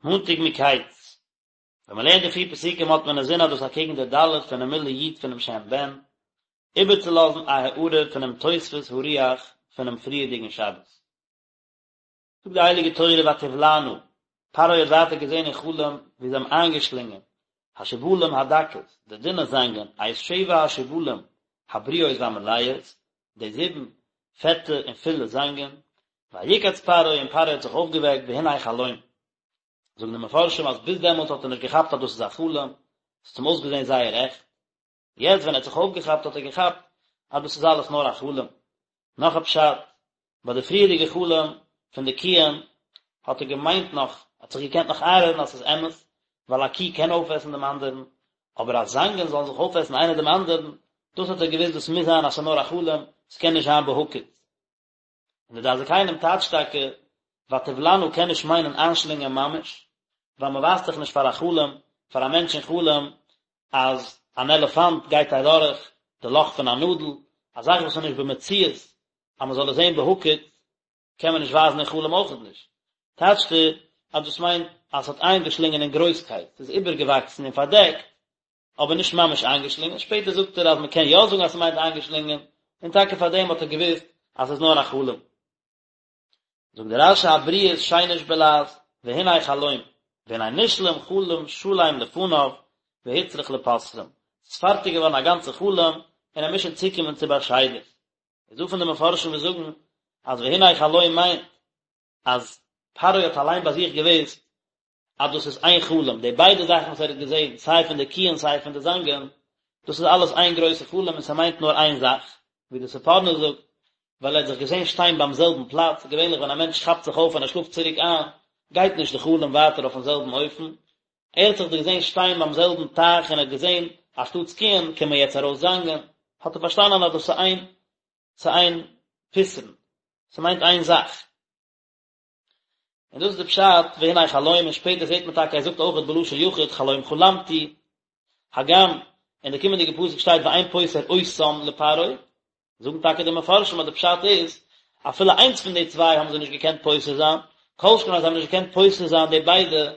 מאנטאג מקץ. ווען מען לערנט די פיר פסוקים האט מען אינזין אז דאס אקעגן די ד' פונעם מילוי י' פונעם שם בן, איבערצולאזן א הארה פונעם תוספות הרוח פונעם פריערדיגן שבת. זאגט די הייליגע תורה ותבלענה, פרעה האט ווייטער געזען אין חלום ווי זיי האבן איינגעשלינגען השיבולים הדקות, די דינע זאנגען, את שבע השיבולים הבריאות והמלאות, די זיבן פעטע און פולע זאנגען, ויקץ פרעה און פרעה האט זיך אויפגעוועקט והנה חלום. זאגן די מפרשים אז ביז דעמאלטס האט ער נישט געכאפט אז דאס איז א חלום, עס האט אים אויסגעזען זייער עכט, יעצט ווען ער האט זיך אויפגעכאפט האט ער געכאפט אז דאס איז אלעס נאר א חלום. נאך א פשט, ביי די פריערדיגע חלום פון די קיען האט ער געמיינט נאך, ער האט זיך געקענט נאך איינרעדן אז ס'איז אמת, ווייל א קי קען אויפעסן דעם אנדערן, אבער אז זאנגען זאלן זיך אויפעסן איינער דעם אנדערן, דאס האט ער געוואוסט דאס מוז זיין אז ס'איז נאר א חלום, ס'קען נישט זיין בהקיץ. און די דעת זקנים טייטשט טאקע, ותבלענה קען נישט מיינען איינשלינגען ממש, ווייל מען ווייזט דאך נישט פאר א חלום, פאר א מענטש אין חלום, אז אן עלעפאנט גייט אדורך די לאך פון א נאדל, א זאך וואס איז נישט במציאות אז מען זאל עס זען בהקיץ, קען מען נישט ווייזן אין חלום אויכעט נישט. טייטשט ער אז דאס מיינט אז עס האט איינגעשלינגען אין גרויסקייט, עס איז איבערגעוואקסן און פארדעקט, אבער נישט ממש איינגעשלינגען, שפעטער זאגט ער אז מען קען יא זאגן אז ס'מיינט איינגעשלינגען, און טאקע פאר דעם האט ער געוואוסט אז ס'איז נאר א חלום. זאגט דער רש"י הבריאות שיינש בלע"ז, והנה חלום, והנה נשלם חלום שלם לפניו, והוצרך לפותרם, ס'איז פארטיג געווארן א גאנצע חלום, און ער מוז שוין צוקומען צו באשיידער. איז דא פון די מפרשים וואס זאגן אז והנה חלום מיינט אז פרעה האט אליין ביי זיך געוואוסט אז דאס איז איין חלום, די ביידע זאכן וואס ער האט געזען, סיי פון די קיען סיי פון די זאנגען, דאס איז אלעס איין גרויסע חלום און ס'מיינט נאר איין זאך, ווי די ספורנו זאגט, ווייל ער האט זיך געזען שטיין ביים זעלבן פלאץ, געווענליך ווען א מענטש כאפט זיך אויף און ער שלאפט צוריק איין, גייט נישט די חלום ווייטער אויפן זעלבן אופן, ער האט זיך געזען שטיין ביים זעלבן טייך און ער האט געזען אז שטאטס קיען קומען יעצט ארויס זאנגען, האט ער פארשטאנען אז דאס איז איין, ס'איז איין פתרון, ס'מיינט איין זאך. און דאס איז די פשט והנה חלום און שפעטער זעט מען טאקע ער זאגט אויכעט בלשון יחיד חלום חלמתי, הגם אין די קומענדיגע פסוק שטייט ואין פותר אותם לפרעה, זאגן טאקע די מפרשים אז די פשט איז אפילו איינס פון די צוויי האבן זיי נישט געקענט פותר זיין, כל שכן אז זיי האבן נישט געקענט פותר זיין די ביידע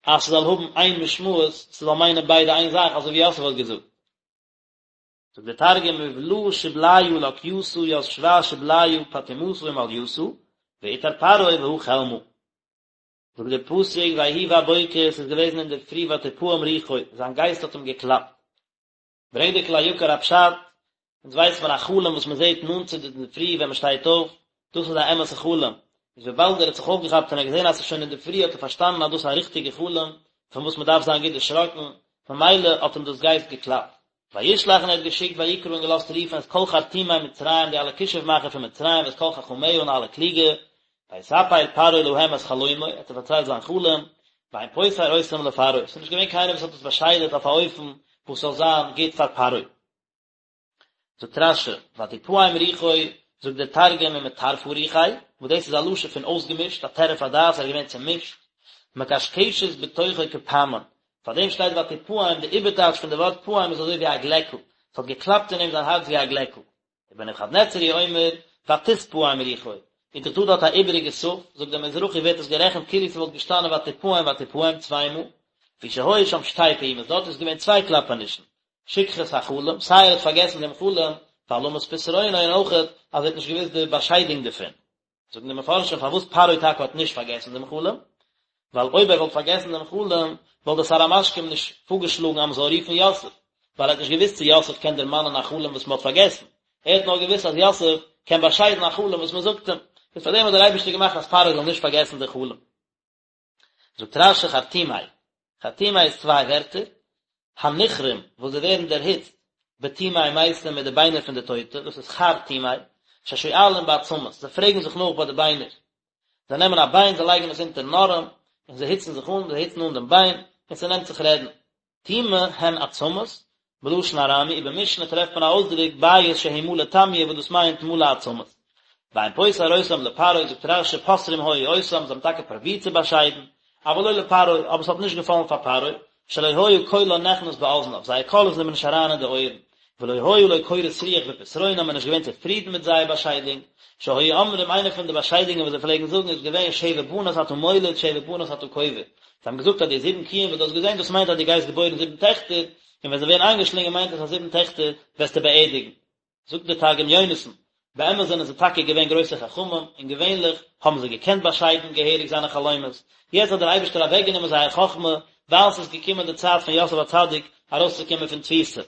אז ס'זאל האבן איין משמעות, ס'זאל מיינען ביידע איין זאך אזוי ווי יוסף האט געזאגט. זאגט דער תרגום ובלא שבליא לקיתא ית שבע שבליא פטימתא ומליתא ואתער פרעה והא חלמא. זאגט דער פסוק ויהי בבוקר עס איז געוועזן אינדערפרי ותפעם רוחו זיין גייסט האט אים געקלאפט. ברענגט דער כלי יקר א פשט, אונז ווייסט מען א חלום וואס מען זעט נאנט צו די אינדערפרי ווען מען שטייט אויף, דאס איז א אמת'ע חלום, איז וויבאלד ער האט זיך אויפגעכאפט און ער האט געזען אז עס איז שוין אינדערפרי האט ער פארשטאנען אז דאס איז א ריכטיגע חלום פון וואס מען דארף זיין גוט דערשראקן, ממילא האט אים דאס גייסט געקלאפט. וישלח און ער האט געשיקט ויקרא און געלאזט רופן את כל חרטומי מצרים די אלע כישוף מאכער פון מצרים ואת כל חכמיה און אלע קלוגע, ויספר פרעה להם את חלומו, ער האט זיי פארציילט זיין חלום, ואין פותר אותם לפרעה, עס איז נישט געווען קיינער וואס האט עס באשיידעט אויף א אופן וואס זאל זיין גוט פאר פרעה. זאגט רש"י, ותפעם רוחו, זאגט דער תרגום ומטרפא רוחיה, וואס דאס איז א לשון פון אויסגעמישט, א טירוף הדעת, ער איז געווען צעמישט, מקשקשת בתוכו כפעמון, פאר דעם שטייט ותפעם, די איבערטייטש פון די ווארט פעם איז אזוי ווי א גלעקל, עס האט געקלאפט אין אים זיין הארץ ווי א גלעקל. ובנבוכדנצר הוא אומר, ותתפעם רוחו, איז דאך דא דארט א איבעריגע ת', זאגט דער מזרחי ווערט עס גערעכנט כאילו ס'וואלט געשטאנען ותפעם ותפעם צוויי מאל, לפי שהיו שם שתי פעימות, דארט איז געווען צוויי קלאפענישן, שכחת החלום, סיי ער האט פארגעסן דעם חלום, והעלמת פתרונו און אויכעט אז ער האט נישט געוואוסט די באשיידונג דערפון. זאגן די מפרשים פארוואס פרעה טאקע האט נישט פארגעסן דעם חלום, ווייל אויב ער וואלט פארגעסן דעם חלום, וואלט דער שר המשקים נישט פארגעשלאגן אז מען זאל רופן יוסף, ווייל ער האט נישט געוואוסט צו יוסף קען דערמאנען א חלום וואס מען האט פארגעסן, ער האט נאר געוואוסט אז יוסף קען באשיידן א חלום וואס מען זאגט אים, איז פארדעם האט דער אייבערשטער געמאכט אז פרעה זאל נישט פארגעסן די חלום. זאגט רש"י חרטומי, חרטומי איז צוויי ווערטער, הנכרים וואס זיי ווערן דערהיצט בטומי מתים מיט די ביינער פון די טויטע, דאס איז חרטומי, ששואלים בעצמות, זיי פרעגן זיך נאך ביי די ביינער, זיי נעמען א ביין זיי לייגן עס אונטערן ארעם, און זיי היצן זיך אן, זיי היצן אן דעם ביין, און ס'נעמט זיך רעדן. טומי הן עצמות, בלשון ארמי, ובמשנה טרעפט מען א אויסדרוק בית שהוא מלא טמיא וואס דאס מיינט מלא עצמות. ואין פותר אותם לפרעה, זאגט רש"י פותרים היו אותם, זיי האבן טאקע פרובירט צו באשיידן, אבל לא לפרעה, אבער עס האט נישט געפאלן פאר פרעה, שלא היה קולן נכנס באזניו, זייער קול איז אים נישט אריין אין די אויערן. ולא היה לו קורת רוח בפתרונם, ער איז נישט געווען צופרידן מיט זייער באשיידונג, שהיו אומרים איינע פון די באשיידונגען וואס זיי פלעגן זאגן איז געווען שבע בנות אתה מוליד שבע בנות אתה קובר, זיי האבן געזאגט אז די זיבן קיען וואס דו האסט געזען דאס מיינט אז דו גייסט געבוירן זיבן טעכטער, און ווען זיי ווערן איינגעשלינגען מיינט עס אז זיבן טעכטער וועסטו באערדיגן. זאגט דער תרגום יונתן, באמת זענען זיי טאקע געווען גרויסע חכמים, און געווענליך האבן זיי געקענט באשיידן געהעריג זיינע חלומות, יעצט האט דער אייבערשטער אוועקגענומען זייער חכמה, ווייל ס'איז געקומען די צייט פון יוסף הצדיק ארויסצוקומען פון תפיסה.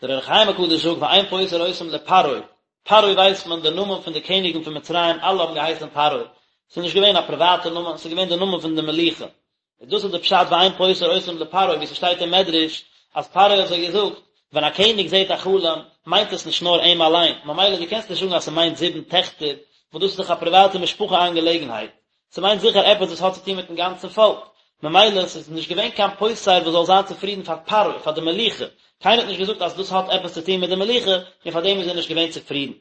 דער אור החיים הקדוש זאגט ואין פותר אותם לפרעה, פרעה ווייסט מען די נאמען פון די קעניגן פון מצרים אלע האבן געהייסן פרעה, ס'איז נישט געווען א פריוואטע נאמען, ס'איז געווען די נאמען פון די מלוכה, און דאס איז די פשט ואין פותר אותם לפרעה ווי ס'שטייט אין מדרש אז פרעה האט זיי געזאגט ווען א קעניג זעט א חלום מיינט עס נישט נאר אים אליין, ממילא דו קענסט נישט זאגן אז ס'מיינט זיבן טעכטער וואס דאס איז דאך א פריוואטע משפחה אנגעלעגנהייט, ס'מיינט זיכער עפעס וואס האט צו טון מיטן גאנצן פאלק, ממילא ס'איז נישט געווען קיין פותר וואס זאל זיין צופרידן פאר פרעה, פאר די מלוכה, קיינער האט נישט געזאגט אז דאס האט עפעס צו טון מיט די מלוכה, און פאר דעם איז ער נישט געווען צופרידן.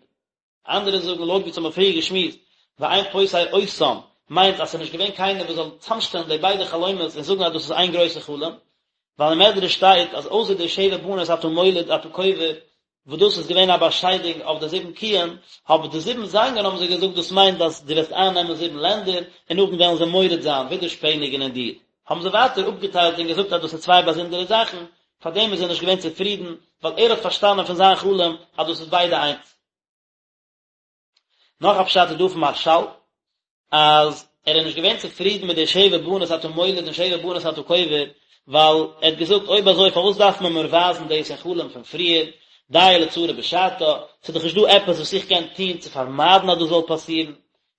אנדערע זאגן לויט ווי אונז האבן פריער געשמועסט, ואין פותר אותם, מיינט אז ס'איז נישט געווען קיינער וואס זאל צאמשטעלן די ביידע חלומות און זאגן אז דאס איז איין גרויסע חלום, ווייל אין מדרש שטייט אז אויסער די שבע בנות אתה מוליד אתה קובר, וואס דאס איז געווען א באשיידונג אויף די זיבן קיען, אבער די זיבן זאנגען האבן זיי געזאגט דאס מיינט אז דו וועסט אייננעמען זיבן לענדער און נאכדעם וועלן זיי מורד זיין, ווידערשפעניגן אין דיר. האבן זיי ווייטער אפגעטיילט און געזאגט אז דאס איז צוויי באזונדערע זאכן, פארדעם איז ער נישט געווען צופרידן, ווייל ער האט פארשטאנען פון זיין חלום אז דאס איז ביידע איינס. נאך א פשט איז דא פון מהרש"ל, אז ער איז נישט געווען צופרידן מיט די שבע בנות אתה מוליד און שבע בנות אתה קובר, ווייל ער האט געזאגט אויב אזוי פארוואס דארף מען מיר ווייזן דאס אין חלום פון פריער, דיה לצרה בשעתה, ס'איז דאך נישט דא עפעס וואס איך קען טון צו פארמיידן אז דאס זאל פאסירן,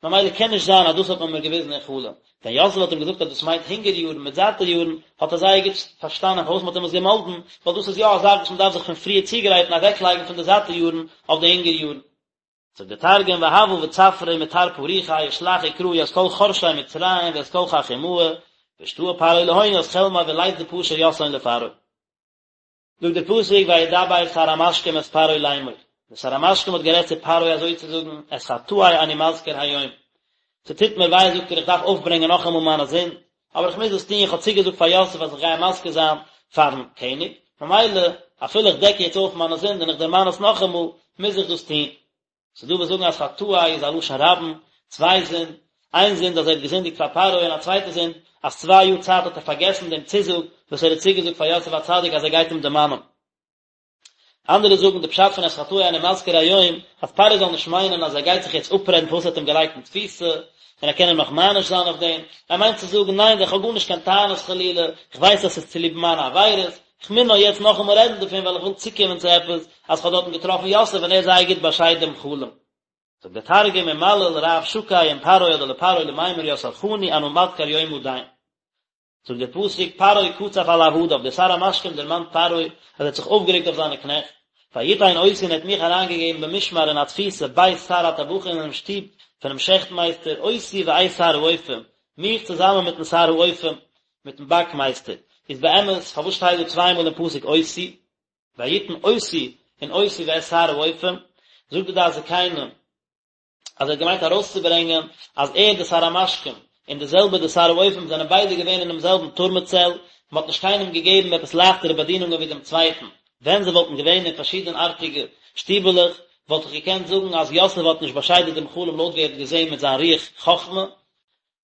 ממילא קען נישט זיין אז דאס האט מען מיר געוויזן אין חלום. ווען יוסף האט אים געזאגט אז דאס מיינט הונגער יארן מיט זאטע יארן, האט ער זייער גוט פארשטאנען פארוואס מען האט אים עס געמאלדן, ווייל דאס איז יא א זאך וואס מען דארף זיך פון פריער צוגרייטן אוועקלייגן פון די זאטע יארן אויף די הונגער יארן. זאגט דער תרגום והוה בצפרא ומטרפא רוחיה ושלח וקרא ית כל חרשי מצרים וית כל חכימהא ואשתעי פרעה להון ית חלמיה ולית דפשר יתהון לפרעה. זאגט דער פסוק וידבר שר המשקים את פרעה לאמור, דער שר המשקים האט גערעדט צו פרעה אזוי צו זאגן, את חטאי אני מזכיר היום, ס'טוט מיר וויי זאגט ער איך דארף אויפברענגען נאכאמאל מיינע זינד, אבער איך מוז עס טון, איך האב צוגעזאגט פאר יוסף אז איך גיי אים מזכיר זיין פארן קעניג, ממילא אפילו איך דעק יעצט אויף מיינע זינד און איך דערמאן עס נאכאמאל, מוז איך דאס טון. ס'איז דא וואס זאגן אז חטאי איז א לשון רבים, צוויי זינד, איין זינד אז ער האט געזינדיגט פאר פרעה און א צווייטע זינד אז צוויי יאר צייט האט ער פארגעסן דעם צוזאג וואס ער האט צוגעזאגט פאר יוסף הצדיק אז ער גייט אים דערמאנען. אנדערע זאגן די פשט פון את חטאי אני מזכיר היום, אז פרעה זאל נישט מיינען אז ער גייט זיך יעצט אפרעדן פארוואס ער האט אים געלייגט אין תפיסה, און ער קען אים נאך מעניש זיין אויף דעם, ער מיינט צו זאגן ניין איך האב גארנישט קיין טענות חלילה, איך ווייס אז ס'איז צוליב מיינע עבירות, איך מוז נאר יעצט נאכאמאל רעדן דערפון ווייל איך וויל צוקומען צו עפעס, אז כ'האב דארטן געטראפן יוסף און ער האט זייער גוט באשיידט דעם חלום. זאגט דער תרגום ומליל רב שקי עם פרעה אדער לפרעה למימר ית אורחני אנא מדכר יומא דין. זאגט דער פסוק פרעה קצף על עבדיו, דער שר המשקים דערמאנט פרעה אז ער האט זיך אויפגערעגט אויף זיינע קנעכט, ויתן אותי און ער האט מיך אריינגעגעבן במשמר אין א תפיסה בית שר הטבחים אינעם שטוב פונעם שעכט מייסטער אותי ואת שר האופים, מיך צוזאמען מיטן שר האופים, מיטן באק מייסטער, איז באמת פארוואס שטייט דא צוויי מאל אין פסוק אותי, ויתן אותי און אותי ואת שר האופים, זאגט די דעת זקנים אז ער האט געמיינט ארויסצוברענגען אז ער די שר המשקים און די זעלבע די שר האופים זענען ביידע געווען אינעם זעלבן טורמע צעל, מען האט נישט קיינעם געגעבן עפעס לייכטערע באדינונגען ווי דעם צווייטן, ווען זיי וואלטן געווען אין פארשידענארטיגע שטיבעלעך וואלט איך געקענט זאגן אז יוסף האט נישט באשיידעט דעם חלום לויט ווי ער האט געזען מיט זיין רוח חכמה,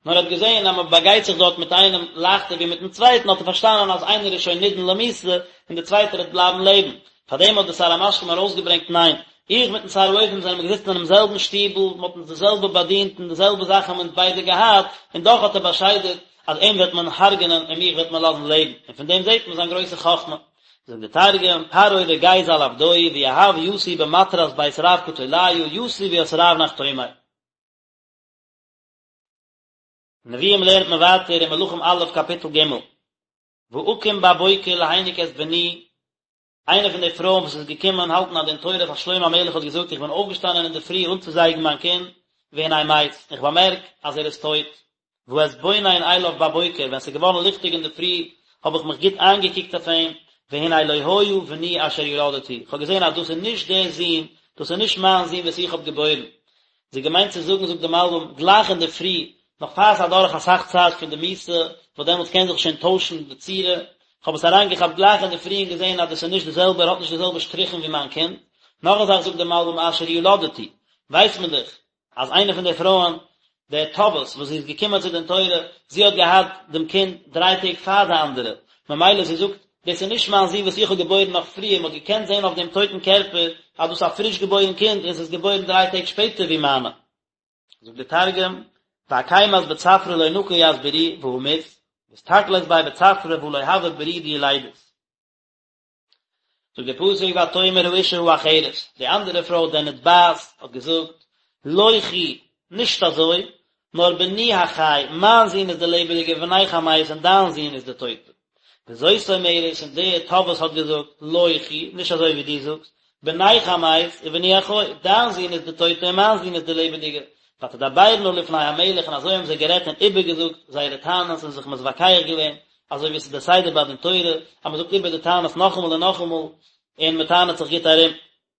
נאר ער האט געזען אז מען באגייט זיך דארט מיט איינעם לייכטער ווי מיטן צווייטן האט ער פארשטאנען אז איינער איז שוין נידון למיתה און דער צווייטער וועט בלייבן לעבן, פארדעם האט דער שר המשקים ארויסגעברענגט ניין, איך מיטן שר האופים זענען מיר געזיצן אינעם זעלבן שטיבל, מען האט אונז די זעלבע באדינט און די זעלבע זאכן האבן אונז ביידע געהאט, און דאך האט ער באשיידעט אז אים וועט מען הרג'נען און מיך וועט מען לאזן לעבן, און פון דעם זעט מען זיין גרויסע חכמה. זאגט דער תרגום, פרעה רגיז על עבדוי ויהב יתי במטרת בית רב קטליא יתי וית רב נחתומי. נביאים לערנט מען ווייטער אין מלכים א' קאפיטל ג', ואקום בבוקר להניק את בני, איינע פון די פרויען וואס איז געקומען האלטן א דין תורה פאר שלמה המלך האט געזאגט איך בין אויפגעשטאנען אינדערפרי אנצוזייגן מיין קינד, והנה מת, איך באמערק אז ער איז טויט, ואתבונן אליו בבוקר, ווען ס'איז געווארן ליכטיג אינדערפרי האב איך מיך גוט איינגעקוקט אויף אים, והנה לא היה בני אשר ילדתי, איך האב געזען אז דאס איז נישט דער זון, דאס איז נישט מיין זון וואס איך האב געבוירן. זי האט געמיינט צו זאגן, זאגט די מלבים, גלייך אינדערפרי, נאך פאר ס'איז אדורך אסאך צייט פון די מיתה, וואס דעמאלטס קען זיך שוין טוישן די צורה, כ'האב עס אריינגעכאפט גלייך אינדערפרי און געזען אז דאס איז נישט די זעלבע, ער האט נישט די זעלבע שטריכן ווי מיין קינד. נאך א זאך זאגט דער מלבי"ם אשר ילדתי, ווייסט מען דאך אז איינע פון די פרויען, די טובעת וואס זי איז געקומען צו דין תורה, זי האט געהאט דעם קינד דריי טעג פאר די אנדערע, ממילא זי זאגט, דאס איז נישט מיין זון וואס איך האב געבוירן נאך פריער, מען האט געקענט זען אויף דעם טויטן קערפער אז דאס איז א פריש געבוירן קינד און עס איז געבוירן דריי טעג שפעטער ווי מיינע. זאגט דער תרגום, ואקימת בצפרא לא נקי ית ברי והא מית, ואסתכלת ביה בצפרא והא לא הוה ברי דילידית. זאגט דער פסוק ותאמר האשה האחרת, די אנדערע פרוי די נתבעת האט געזאגט, לא כי, נישט אזוי, נאר בני החי, מיין זון איז דער לעבעדיגער ובנך המת און דיין זון איז דער טויטער. וזאת אומרת, און די תובעת האט געזאגט, לא כי, נישט אזוי ווי דו זאגסט, בנך המת ובני החי, דיין זון איז דער טויטער און מיין זון איז דער לעבעדיגער. ותדברנה לפני המלך און אזוי האבן זיי גערעדט און איבערגעזאגט זייערע טענות און זיך מתווכח געווען, אזוי ווי עס איז דער סדר ביי דין תורה, אז מען זאגט איבער די טענות נאכאמאל און נאכאמאל, און מען טענה'ט זיך גוט ארום.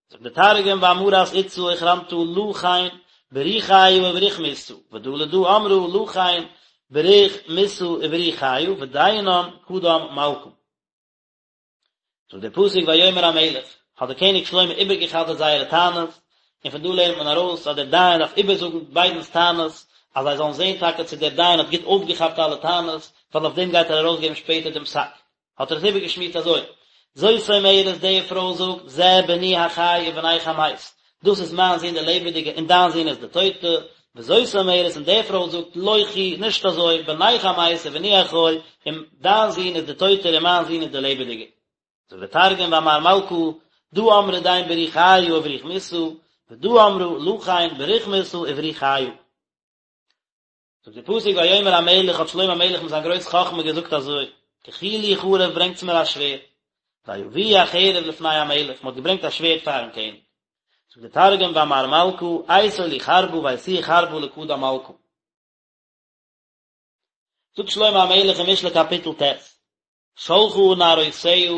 זאגט דער תרגום ואמרת אתתא אוחרנתא לא כן ברי חיא ובריך מיתא, ודא לדא אמרה לא כן בריך מיתא וברי חיא, ודיינן קדם מלכא. זאגט דער פסוק ויאמר המלך, האט דער קעניג שלמה איבערגע'חזר'ט זייערע טענות, און פון דא לערנט מען ארויס אז דער דיין דארף איבערזאגן ביידנ'ס טענות, אז זיי זאלן זען טאקע צו דער דיין האט גוט אויפגעכאפט אלע טענות, ווייל אויף דעם גייט ער ארויסגעבן שפעטער דעם פסק. האט ער עס איבערגעשמועסט אזוי, זאת אומרת די פרוי זאגט, זה בני החי ובנך המת, דאס איז מיין זון דער לעבעדיגער און דיין זון איז דער טויטע, וזאת אומרת און די פרוי זאגט, לא כי, נישט אזוי, בנך המת ובני החי, און דיין זון איז דער טויטער און מיין זון איז דער לעבעדיגער. זאגט דער תרגום ואמר מלכא, דא אמרה דין ברי חיא ובריך מיתא, ודא אמרה לא כן בריך מיתא וברי חיא. זאגט דער פסוק ויאמר המלך האט שלמה המלך מיט זיין גרויס חכמה געזאגט אזוי, קחו לי חרב ברענגטס מיר א שווערד, ויביאו החרב לפני המלך, מען האט געברענגט א שווערד פארן קעניג. זאגט דער תרגום ואמר מלכא, אייתו לי חרבא ואייתוה חרבא לקדם מלכא. זאגט שלמה המלך אין משלי קאפיטל ט', שלחה נערותיה,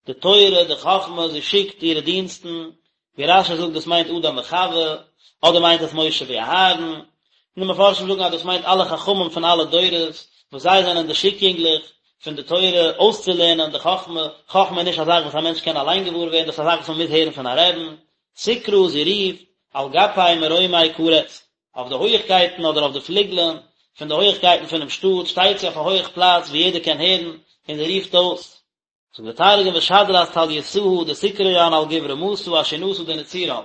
די תורה, די חכמה, זי שיקט אירע דינסטן, ווי רש"י זאגט דאס מיינט אדם וחוה, אדער מיינט עס משה ואהרן, און די מפרשים זאגן אז דאס מיינט אלע חכמים פון אלע דורות, וואס זיי זענען די שיק יונגלעך פון די תורה אויסצולערנען די חכמה, חכמה איז נישט א זאך וואס א מענטש קען אליין געוואר ווערן, דאס איז א זאך וואס מען מוז הערן פון א רעבן, תקרא, זי רופט, על גפי מרומי קראת. אויף די הויכקייטן אדער אויף די פליגלען פון די הויכקייטן פונעם שטאט שטייט זי אויף א הויך פלאץ וואו יעדער קען הערן און זי רופט אויס. זאגט דער תרגום ושדרת טליתהא דתקרין על גוב רמתא אשינתא דנצירן.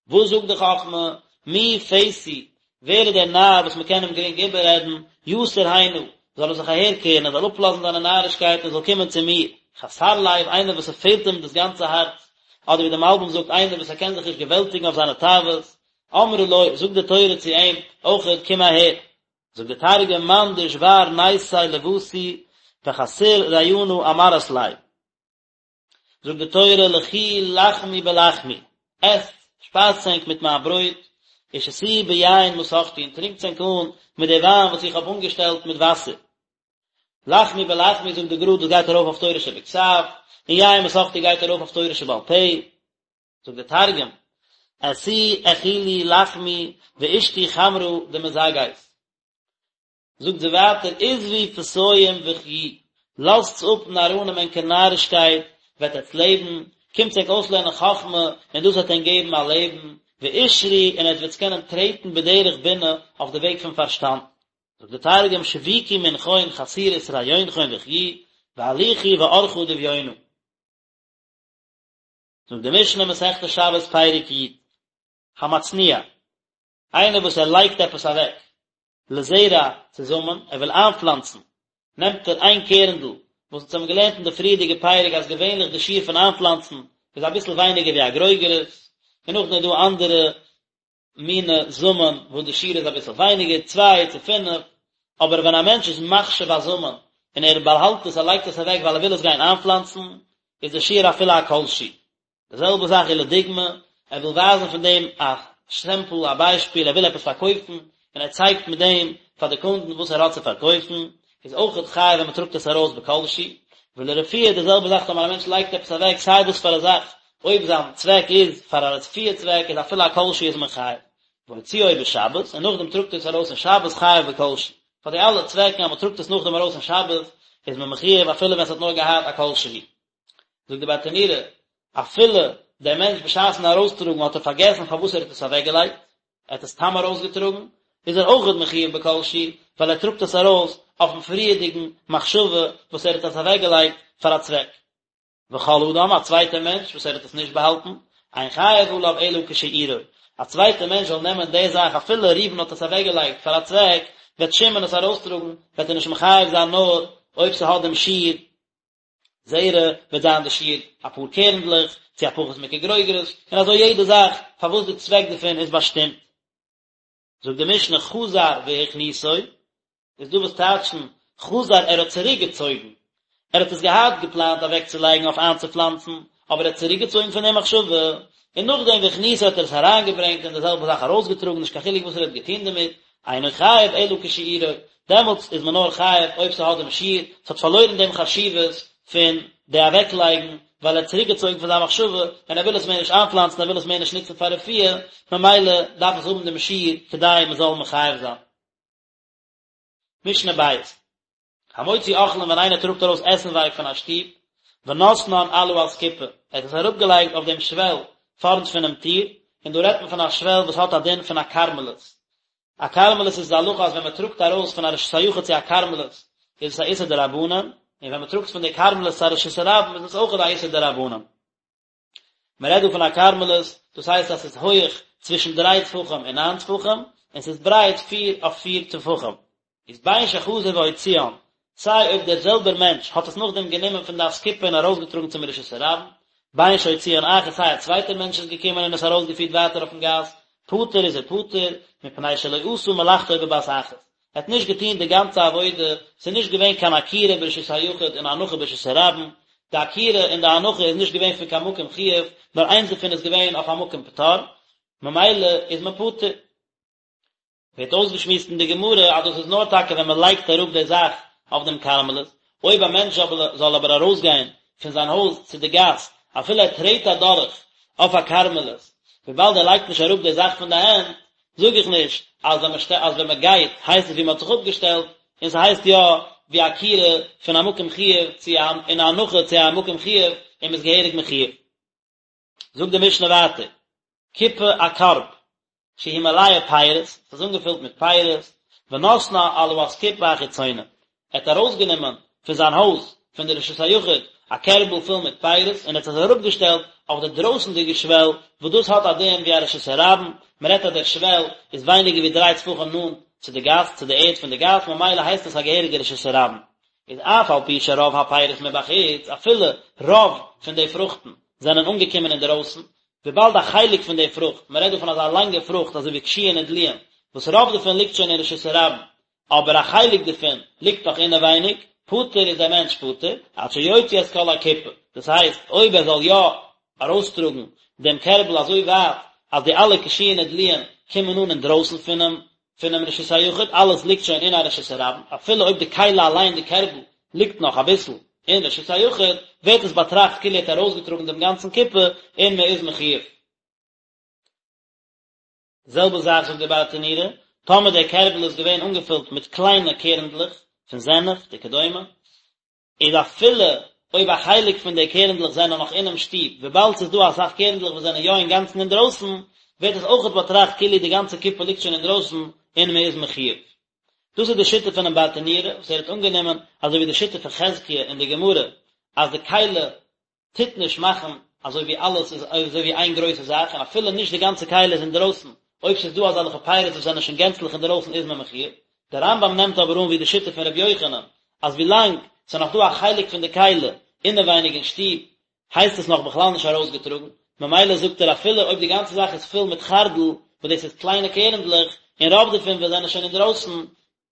וואס זאגט די חכמה? מי פתי, ווער איז דער נאר וואס מען קען אים גרינג איבעררעדן, יסור הנה, זאל ער זיך אהערקערן, ער זאל אפלאזן זיינע נארישקייטן און זאל קומען צו מיר. חסר לב, איינער וואס ס'פעלט אים דאס גאנצע הארץ, אדער ווי דער מלבי"ם זאגט, איינער וואס ער קען זיך נישט געוועלטיגן אויף זיינע תאוות, אמרה לו, זאגט די תורה צו אים, אויכעט, קום אהער. זאגט די תרגום, מאן דשבר ניסיה לותי וחסיר רעיונא אמרת ליה. זאגט די תורה, לכו לחמו בלחמי, עסט, שפייזטס ענק מיט מיין ברויט, ושתו ביין מסכתי, און טרינקטס ענק אן מיט די וויין וואס איך האב אנגעשטעלט מיט וואסער. לחמו בלחמי, זאגט די גר"א, דאס גייט ארויף אויף תורה שבכתב, און יין מסכתי גייט ארויף אויף תורה שבעל פה. זאגט דער תרגום, עשו אכילו לחמי ואשתו חמרא דמזגת. זאגט זי ווייטער, עזבו פתאים וחיו, לאזטס אפ נאראנים ענקער נארישקייט, וועט עטס לעבן, קומטס ענק אויסלערנען חכמה, און דאס וועט ענק געבן א לעבן, ואשרו, און עטס וועטס קענען טרעטן בדרך בינה, אויף די וועג פון פארשטאנד. זאגט דער תרגום, שביקו מנכון חסירות רעיונכון וחיו, והליכו באורחא דביונא. זאגט די משנה מסכת שבת פרק י, המצניע, איינער וואס ער לייגט עפעס אוועק, לזרע צו זאמען, ער וויל איינפלאנצן, נעמט ער איין קערנדל, וואס אונז האבן געלערנט אין די פריערדיגע פרק אז געווענליך די שיעור פון איינפלאנצן איז אביסל ווייניגער ווי א גרוגרת, און נאכדעם איז דא אנדערע מיני זאמען וואס די שיעור איז אביסל ווייניגער, צוויי צו פינף, אבער ווען א מענטש איז מחשיב א זאמען און ער באהאלט עס, ער לייגט עס אוועק ווייל ער וויל עס גיין איינפלאנצן, איז די שיעור אפילו א כל שהוא. די זעלבע זאך איז לדוגמא, ער וויל ווייזן פון דעם א סעמפל, א ביישפיל, ער וויל עפעס פארקויפן, און ער צייגט מיט דעם פאר די קונדן וואס ער האט צו פארקויפן, איז אויכעט חייב ווען מען טראגט עס ארויס בכל שהוא. ולרפואה די זעלבע זאך טאמער א מענטש לייגט עפעס אוועק סיי וואס פאר א זאך, אויב זיין צוועק איז פאר א רפואה צוועק איז אפילו א כל שהוא איז מען חייב. והוציאו בשבת, און נאכדעם טראגט ער עס ארויס אין שבת חייב בכל שהוא. פאר די אלע צוועקן אז מען טראגט עס נאכדעם ארויס אין שבת, איז מען מחיוב אפילו ווען ס'האט נאר געהאט א כל שהוא. זאגט די ברטנורא, אפילו דער מענטש בשעת'ן ארויסטראגן האט ער פארגעסן פארוואס ער האט עס אוועקגעלייגט, ער האט עס סתם ארויסגעטראגן, איז ער אויכעט מחיוב בכל שהוא, ווייל ער טראגט עס ארויס אויפ'ן פריערדיגן מחשבה וואס ער האט עס אוועקגעלייגט פאר א צוועק. וכל אדם, א צווייטער מענטש וואס ער האט עס נישט באהאלטן, אין חייב עליו אלא כשיעורו, א צווייטער מענטש זאל נעמען די זאך אפילו ראובן האט עס אוועקגעלייגט פאר א צוועק, וועט שמעון עס ארויסטראגן, וועט ער נישט מחויב זיין נאר אויב ס'האט דעם שיעור זרע, וועט זיין די שיעור אפאר קערנדלעך, צו א פחות מכגרוגרת, און אזוי יעדע זאך פארוואס די צוועק דערפון איז באשטימט. זאגט די משנה חזר והכניסו, איז דא וואס טייטשן חזר ער האט צוריק געצויגן, ער האט עס געהאט געפלאנט אוועק צו לייגן אויף איינצופלאנצן, אבער ער האט צוריק געצויגן פון די מחשבה, און נאכדעם והכניסו האט ער עס אריינגעברענגט און די זעלבע זאך ארויסגעטראגן נישט קיין חילוק וואס ער האט געטון דערמיט, אינו חייב אלא כשיעורו, דעמאלטס איז מען נאר חייב אויב ס'האט דעם שיעור, ס'האט פארלוירן דעם חשיבות פון די אוועקלייגן, ווייל ער האט צוריקגעצויגן פון זיין מחשבה, און ער וויל עס מער נישט איינפלאנצן, ער וויל עס מער נישט נוצן פאר רפואה, ממילא דארף עס האבן דעם שיעור כדי מען זאל מחויב זיין. משנה בית. המוציא אוכלים ווען איינער טראגט ארויס עסנווארג פון א שטוב, ונתנן על האסקופה, ער האט עס אראפגעלייגט אויף דעם שוועל פארנט פונעם טיר, און דא רעדט מען פון א שוועל וואס האט א דין פון א כרמלית. א כרמלית איז די הלכה אז ווען מען טראגט ארויס פון א רשות היחיד צו א כרמלית איז עס א איסור דרבנן, און ווען מען טראגט פון די כרמלית צו א רשות הרבים איז עס אויך א איסור דרבנן. מען רעדט דא פון א כרמלית, דאס הייסט אז ס'איז הויעך צווישן דריי טפחים און ניין טפחים, און ס'איז ברייט פיר אויף פיר טפחים. איז בין שחזר והוציאן, סיי אויב דער זעלבער מענטש האט עס נאכדעם גענומען פון די אסקופה און ארויסגעטראגן צום רשות הרבים, בין שהוציאן אחר סיי א צווייטער מענטש איז געקומען און עס ארויסגעפירט ווייטער אויפן גאס, פטור איז ער פטור, מפני שלא עשה מלאכתו בבת אחת. ער האט נישט געטון די גאנצע עבודה, ס'איז נישט געווען קיין עקירה ברשות היחיד און הנחה ברשות הרבים, די עקירה און די הנחה איז נישט געווען פון קיין מקום חיוב, נאר איינס דערפון איז געווען אויף א מקום פטור, ממילא איז מען פטור. ווערט אויסגעשמועסט אין די גמרא אז דאס איז נאר טאקע ווען מען לייגט אראפ די זאך אויף דעם כרמלית, אויב א מענטש זאל אבער ארויסגיין פון זיין הויז צו די גאס, אפילו ער טרעט אדורך אויף א כרמלית, וויבאלד ער לייגט נישט אראפ די זאך פון די הענט, זאג איך נישט אז ווען מען אז ווען מען גייט הייסט עס ווי מען האט זיך אפגעשטעלט, און ס'הייסט יא ווי עקירה פון א מקום חיוב צו א און א הנחה צו א מקום חיוב און מ'איז געהעריג מחויב. זאגט די משנה ווייטער, קופה א קארב, שהיא מלאה פירות, ס'איז אנגעפילט מיט פירות, ונתנה על האסקופה החיצונה, ער האט ארויסגענומען פון זיין הויז, פון די רשות היחיד, א קערבל פול מיט פירות, און ער האט עס אראפגעשטעלט אויף די דרויסנדיגע שוועל, וואס דאס האט א דין ווי א רשות הרבים, מען רעדט אז דער שוועל איז ווייניגער ווי דריי טפחים נאנט צו די גאס, צו די ערד פון די גאס, ממילא הייסט עס א געהעריגע רשות הרבים. איז אף על פי שרוב הפירות מבחוץ, אפילו רוב פון די פרוכטן זענען אנגעקומען אינדערויסן, וויבאלד א חלק פון די פרוכט, מען רעדט דא פון אזא לאנגע פרוכט אזוי ווי קישואין און דלועין, וואס רוב דערפון ליגט שוין אין רשות הרבים, אבער א חלק דערפון ליגט נאך אינעווייניג, פטור איז דער מענטש פטור, עד שיוציא את כל הקופה, דאס הייסט, אויב ער זאל יא ארויסטראגן דעם קערבל אזוי ווייט אז די אלע קישואין און דלועין קומען אן אינדרויסן פונעם פונעם רשות היחיד, אלעס ליגט שוין אין א רשות הרבים, אפילו אויב די כלי אליין, די קערבל, ליגט נאך אביסל אין רשות היחיד, ווערט עס באטראכט כאילו ער האט ארויסגעטראגן דעם גאנצן קופה און מען איז מחויב. די זעלבע זאך זאגט דער ברטנורא, טאמער דער קערבל איז געווען אנגעפילט מיט קליינע קערנדלעך פון זענעפט וכדומה, איז אפילו אויב א חלק פון די קערנדלעך זענען נאך אינעם שטוב, וויבאלד ס'איז דא אסאך קערנדלעך וואס זענען יא אינגאנצן אינדרויסן, ווערט עס אויכעט באטראכט כאילו די גאנצע קופה ליגט שוין אינדרויסן און מען איז מחויב. דאס איז די שיטה פונעם ברטנורא, וואס ער האט אנגענומען, אזוי ווי די שיטה פון חזקיה אין די גמרא, אז די כלי טוט נישט מאכן אזוי ווי אלעס איז אזוי ווי איין גרויסע זאך, און אפילו נישט די גאנצע כלי איז אינדרויסן, אויב ס'איז דא אזעלכע פירות וואס זענען שוין גענצליך אינדרויסן איז מען מחויב. דער רמב"ם נעמט אבער אן ווי די שיטה פון ר' יוחנן, אז ווילאנג ס'איז נאך דא א חלק פון די כלי אינעווייניג אין שטוב, הייסט עס נאך בכלל נישט ארויסגעטראגן, ממילא זאגט ער אפילו אויב די גאנצע זאך איז פול מיט חרדל, וואס דאס איז קליינע קערנדלעך, און רוב דערפון וואס זענען שוין אינדרויסן,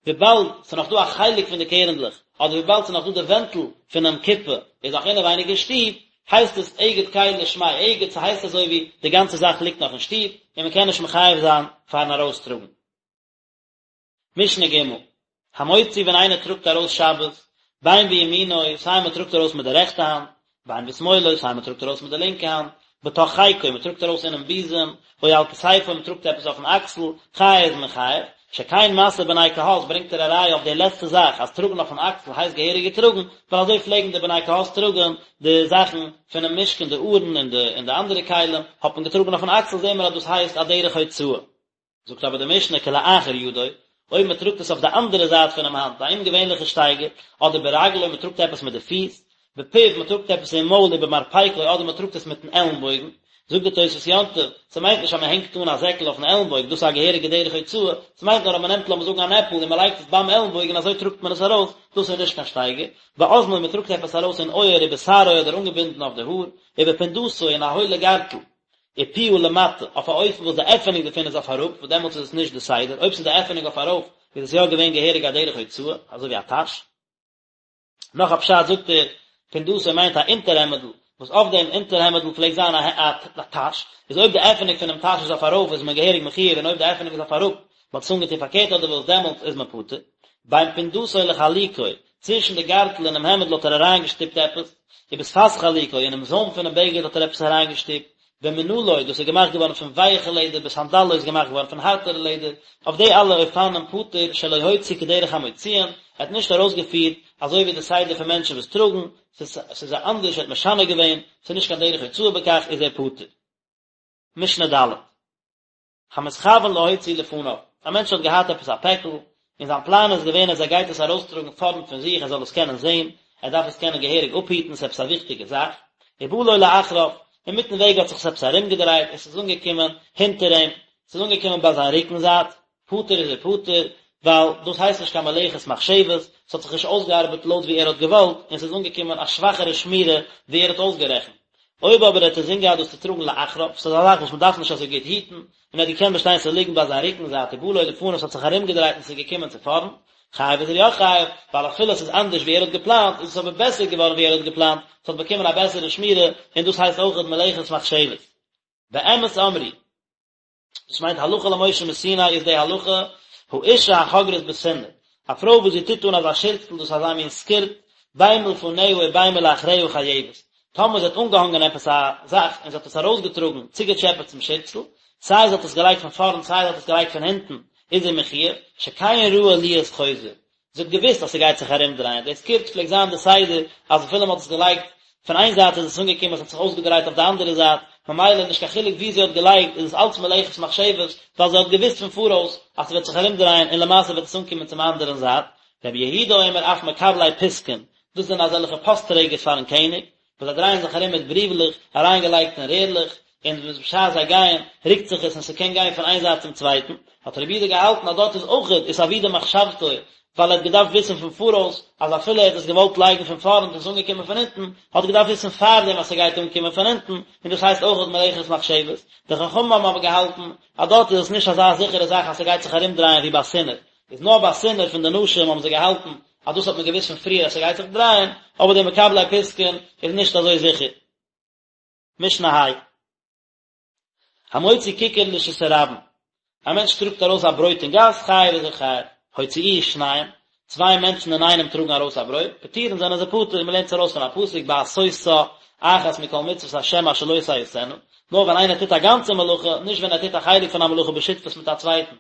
וויבאלד ס'איז נאך דא א חלק פון די קערנדלעך, אדער וויבאלד ס'איז נאך דא די ווענטל פונעם קופה איז נאך אינעווייניג אין שטוב, הייסט עס אגד כלי שמיה אגד, ס'הייסט אזוי ווי די גאנצע זאך ליגט נאך אין שטוב, און מ'קען נישט מחייב זיין פארן ארויסטראגן. משנה ג', המוציא ווען איינער טראגט ארויס שבת, בין בימינו, סיי מ'טראגט ארויס מיט די רעכטע האנט, בין בשמאלו, סיי מ'טראגט ארויס מיט די לינקע האנט, בתוך חיקו, מ'טראגט ארויס אינעם בוזעם, או על כתפו, מ'טראגט עפעס אויפן אקסל, חייב איז מען חייב. שכן משא בני קהת ברענגט ער א ראיה אויף די לעצטע זאך אז טראגן אויפן אקסל הייסט געהעריג געטראגן, ווייל אזוי פלעגן די בני קהת טראגן די זאכן פונעם משכן די ארון און די און די אנדערע כלים האט מען געטראגן אויפן אקסל זעהן מיר אז דאס הייסט א דרך הוצאה. זאגט אבער די משנה כלאחר ידו, אויב מען טראגט עס אויף די אנדערע זייט פונעם האנט, א אומגעווענליכע שטייגער, אדער ברגלו מען טראגט עפעס מיט די פיס, בפיו מען טראגט עפעס אין מויל ובמרפקו אדער מען טראגט עס מיטן עלנבויגן, זאגט די תוספות יום טוב, ס'מיינט נישט אז מען הענגט אן א זעקל אויפן עלנבויגן, דאס איז א געהעריגע דרך הוצאה, ס'מיינט נאר אז מען נעמט לאמיר זאגן אן עפל און מען לייגט עס ביים עלנבויגן און אזוי טראגט מען עס ארויס, דאס איז נישט קיין שטייגער, באזנו מען טראגט עפעס ארויס אין אויער ובשערו אדער אנגעבינדן אויף די האר, ובפונדתו אין א הוילע גארטל. ופיה למטה, אויף א אופן וואס די עפענונג דערפון איז אויף אראפ, וואס דעמאלטס איז עס נישט די סדר, אויב ס'איז די עפענונג אויף ארויף, איז עס יא געווען געהעריג א דרך הוצאה, אזוי ווי א טאש. נאך א פשט זאגט ער, פונדתו מיינט א אונטערהעמעדל, וואס אויף דעם אונטערהעמעדל פלעגט זיין א טאש, איז אויב די עפענונג פונעם טאש איז אויף ארויף איז מען געהעריג מחויב און אויב די עפענונג איז אויף אראפ, מ'האט עס אנגעטון פארקערט אדער וואס, דעמאלטס איז מען פטור. בין פונדתו לחלוקו, צווישן די גארטל און דעם העמעדל האט ער אריינגעשטופט עפעס, ובשפת חלוקו, אינעם זוים פונעם בגד האט ער עפעס אריינגעשטופט, במנעלו, דאס איז געמאכט געווארן פון ווייעכע לעדער, בסנדלו איז געמאכט געווארן פון הארטערע לעדער, אויף די אלע אופנים פטור שלא הוציא כדרך המוציאין, ער האט נישט ארויסגעפירט אזוי ווי די סדר פון מענטשן וואס טראגן, ס'איז אנדערש, ער האט משנה געווען, ס'איז נישט קיין דרך הוצאה בכך, איז ער פטור. משנה ד'. המתכוון להוציא לפניו, א מענטש האט געהאט עפעס א פעקל, און זיין פלאן איז געווען אז ער גייט עס ארויסטראגן פארנט פון זיך ער זאל עס קענען זען, ער דארף עס קענען געהעריג אפהיטן, ס'איז עפעס א וויכטיגע זאך, ובא לו לאחריו, אינמיטן וועג האט זיך עס עפעס ארומגעדרייט און ס'איז אנגעקומען הינטער אים, ס'איז אנגעקומען ביי זיין רוקן זייט, פטור איז ער פטור, ווייל דאס הייסט נישט קיין מלאכת מחשבת, ס'האט זיך נישט אויסגעארבעט לויט ווי ער האט געוואלט, און ס'איז אנגעקומען א שוואכערע שמירה ווי ער האט אויסגערעכנט. אויב אבער האט ער אינזין געהאט דאס צו טראגן לאחריו, ס'איז א זאך וואס מ'דארף נישט אזוי גוט היטן, און ער האט געקענט באשטיין ס'זאל ליגן ביי זיין רוקן זייט ובא לו לפניו ס'האט זיך ארומגעדרייט און ס'איז געקומען צו פארנט, חייב איז ער יא חייב, ווייל אפילו עס איז אנדערש ווי ער האט געפלאנט, איז עס אבער בעסער געווארן ווי ער האט געפלאנט, ס'האט באקומען א בעסערע שמירה, און דאס הייסט אויכעט מלאכת מחשבת. באמת אמרו. דאס מיינט הלכה למשה מסיני איז די הלכה, האשה החוגרת בסינר, א פרוי וואס זי טוט אן אזא שירצל דאס איז אזא מין סקירט, בין מלפניה ובין מלאחריה חייבת, טאמער זי האט אנגעהאנגען עפעס א זאך און זי האט עס ארויסגעטראגן צוגעטשעפעט צום שירצל, סיי זי האט עס געלייגט פון פארנט סיי זי האט עס געלייגט פון הינטן, איז זי מחויב, שכן ראוי להיות חוזר, זי האט געוואוסט אז ס'גייט זיך ארומדרייען, די סקירט פלעגט זיין די סדר אז אפילו מ'האט עס געלייגט פון איין זייט איז עס אנגעקומען עס האט זיך אויסגעדרייט אויף די אנדערע זייט, ממילא נישט קיין חילוק ווי זי האט געלייגט איז עס אלץ מלאכת מחשבת, ווייל זי האט געוואוסט פון פאראויס אז ס'וועט זיך ארומדרייען און למעשה וועט עס אנקומען צום אנדערן זייט. רבי יהודה אומר אף מקבלי פתקין, דאס זענען אזעלכע פאסט טרעגערס פארן קעניג, וואס זיי דרייען זיך ארום מיט בריוולעך אריינגעלייגט אין רערלעך, און בשעת זיי גייען רוקט זיך עס און ס'קען גיין פון איין זייט צום צווייטן, האט רבי יהודה געהאלטן אז דארט איז אויכעט איתעבידה מחשבתו, ווייל ער האט געדארפט וויסן פון פאראויס אז אפילו ער האט עס געוואלט לייגן פון פארנט און עס איז אנגעקומען פון הינטן, האט ער געדארפט וויסן פארדעם אז ס'גייט אנקומען פון הינטן, און דאס הייסט אויכעט מלאכת מחשבת. די חכמים האבן אבער געהאלטן אז דארט איז עס נישט אזא זיכערע זאך אז ס'גייט זיך ארומדרייען ווי ביי סינר, איז נאר ביי סינר פון די נשים האבן זיי געהאלטן אז דאס האט מען געוואוסט פון פריער אז ס'גייט זיך דרייען, אבער די מקבלי פתקין איז נישט אזוי זיכער. משנה ה'. המוציא כיכר לרשות הרבים, א מענטש טראגט ארויס א ברויט אין גאס, חייב איז ער חייב. הוציאוהו שניים, צוויי מענטשן אינאיינעם טראגן ארויס א ברויט, פטורין זענען זיי פטור, מ'לערנט עס ארויס פון א פסוק בעשותה אחת מכל מצוות השם אשר לא תעשינה, נאר ווען איינער טוט א גאנצע מלאכה, נישט ווען ער טוט א חלק פון א מלאכה בשותפות מיט א צווייטן.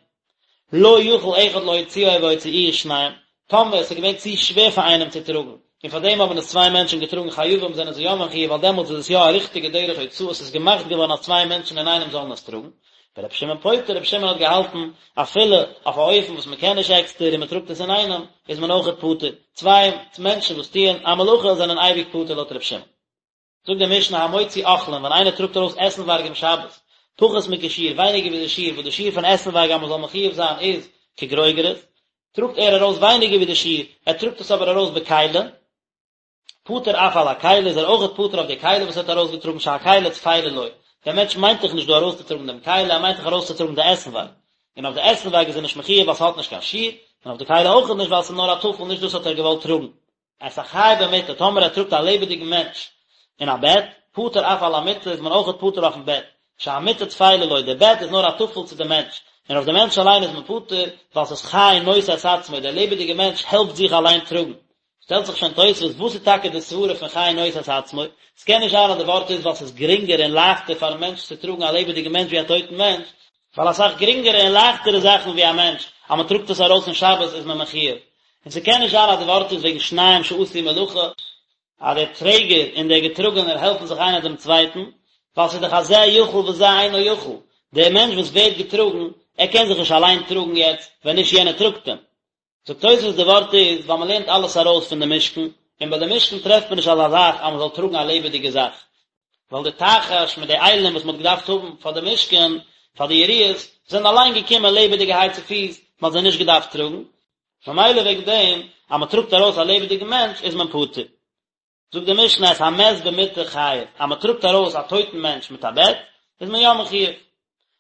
לא יכול אחד להוציאו והוציאוהו שניים, טאמער עס איז געווען צו שווער פאר איינעם צו טראגן, און פאר דעם האבן עס צוויי מענטשן געטראגן חייבים זענען זיי יא מחויב ווייל דעמאלטס איז עס יא א ריכטיגע דרך הוצאה עס איז געמאכט געווארן אז צוויי מענטשן אינאיינעם זאלן עס טראגן. ורבי שמעון פוטר, רבי שמעון האט געהאלטן אפילו אויף א אופן וואס מען קען נישט עקסטער און מען טראגט עס אינאיינעם איז מען אויכעט פטור, צוויי מענטשן וואס טוען א מלאכה זענען אייביג פטור לויט רבי שמעון. זאגט די משנה המוציא אוכלים ווען איינער טראגט ארויס עסנווארג אום שבת, פחות מכשיעור, ווייניגער ווי די שיעור, וואס די שיעור פון עסנווארג אז מען זאל מחויב זיין איז כגרוגרת, טראגט ער ארויס ווייניגער ווי די שיעור, ער טראגט עס אבער ארויס בכלי, פטור אף על הכלי איז ער אויכעט פטור אויף די כלי וואס ער האט ארויסגעטראגן שהכלי טפלה לו, דער מענטש מיינט דאך נישט דא ארויסצוטראגן דעם כלי, ער מיינט דאך ארויסצוטראגן די עסנווארג, און אויף די עסנווארג איז ער נישט מחויב ווייל ס'האט נישט קיין שיעור, און אויף די כלי אויכעט נישט ווייל ס'איז נאר א טפל נישט דאס האט ער געוואלט טראגן. את החי במיטה, טאמער ער טראגט א לעבעדיגן מענטש אין א בעט, פטור אף על המיטה, איז מען אויכעט פטור אויפן בעט, שהמיטה טפלה לו, דער בעט איז נאר א טפל צו דעם מענטש, און אויף דעם מענטש אליין איז מען פטור, ווייל ס'איז חי נושא את עצמו, דער לעבעדיגער מענטש העלפט זיך אליין טראגן. שטעלט זיך שוין תוספות, וואס איז טאקע די סברה פון חי נושא את עצמו? ס'קען נישט זיין אז די ווארט איז ווייל ס'איז גרינגער און לייכטער פארן מענטש צו טראגן א לעבעדיגן מענטש ווי א טויטן מענטש, ווייל אסאך גרינגערע און לייכטערע זאכן ווי א מענטש. אז מען טראגט עס ארויס אין שבת איז מען מחויב, און ס'קען נישט זיין אז די ווארט איז וועגן שניים שעשו מלאכה, אז דער טרעגער און דער געטראגענער העלפן זיך איינער דעם צווייטן, ווייל ס'איז דאך א זה יכול וזה אינו יכול, דער מענטש וואס ווערט געטראגן, ער קען זיך נישט אליין טראגן יעצט, ווען נישט יענער טראגט אים. זאגט תוספות די ווארט איז ווייל מען לערנט אלעס ארויס פון די משכן, און ביי די משכן טרעפט מען נישט אזא זאך אז מען זאל טראגן א לעבעדיגע זאך, ווייל די תחש מיט די אילים וואס מען האט געדארפט האבן פאר די משכן, פאר די יריעות, זענען אליין געקומען לעבעדיגערהייט צופיס, מען האט זיי נישט געדארפט טראגן, ממילא וועגן דעם אז מען טראגט ארויס א לעבעדיגן מענטש איז מען פטור. זאגט די משנה את המת במיטה חייב, אז מען טראגט ארויס א טויטן מענטש מיט א בעט, איז מען יא מחויב.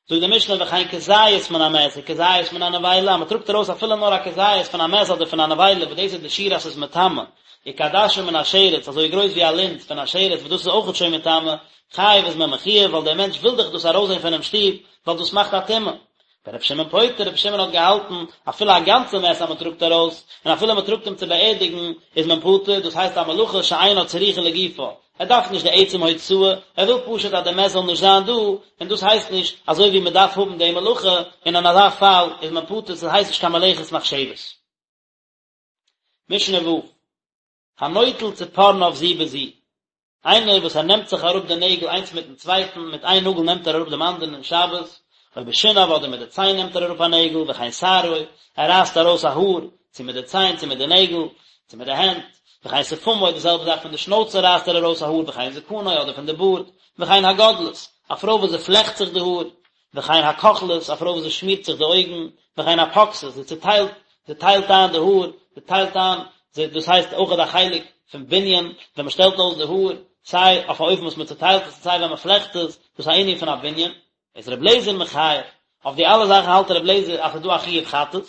זאגט די משנה וכן כזית מן המת וכזית מן הנבילה, אז מען טראגט ארויס אפילו נאר א כזית פון א מת אדער פון א נבילה וואס דאס איז די שיעור אז ס'איז מטמא, וכעדשה מן השרץ, אזוי גרויס ווי א לינט פון א שרץ וואס דאס איז אויכעט שוין מטמא, חייב איז מען מחויב ווייל דער מענטש וויל דאך דאס ארויסזען פונעם שטוב, ווייל דאס מאכט א טומאה. ורבי שמעון פוטר, רבי שמעון האט געהאלטן, אפילו א גאנצע מת אז מען טראגט ארויס, און אפילו מען טראגט אים צו באערדיגן, איז מען פטור, דאס הייסט א מלאכה שאינה צריכה לגופה, ער דארף נישט די עצם הוצאה, ער וויל פשוט אז די מת זאל נישט זיין דא, און דאס הייסט נישט אזוי ווי מען דארף האבן די מלאכה, און אין אזא פאל איז מען פטור, ס'הייסט נישט קיין מלאכת מחשבת. משנה ו', הנוטל צפרניו זו בזו, איינער וואס ער נעמט זיך אראפ די נעגל איינס מיטן צווייטן, מיט איין נאגל נעמט ער אראפ דעם אנדערן אין שבת, או בשיניו אדער מיט די ציין נעמט ער אראפ א נעגל, וכן שערו, ער רייסט ארויס א האר, צו מיט די ציין צו מיט די נעגל, צו מיט די הענט, וכן שפמו, די זעלבע זאך פון די שנויצע רייסט ער ארויס א האר, וכן זקנו, אדער פון די בארד, וכן הגודלת, א פרוי וואס זי פלעכט זיך די האר, וכן הכוחלת, א פרוי וואס זי שמירט זיך די אויגן, וכן הפוקסת, זי צעטיילט, זי טיילט איין די האר, זי טיילט איין, זי, דאס הייסט אויכעט א חלק פון בנין, ווען מען שטעלט אויס די האר, סיי אויף א אופן וואס מען צעטיילט עס און סיי ווען מען פלעכט עס, דאס איז א ענין פון א בנין. איז רבי אליעזר מחייב, אויף די אלע זאכן האלט רבי אליעזר אז ס'איז דא א חיוב חטאת,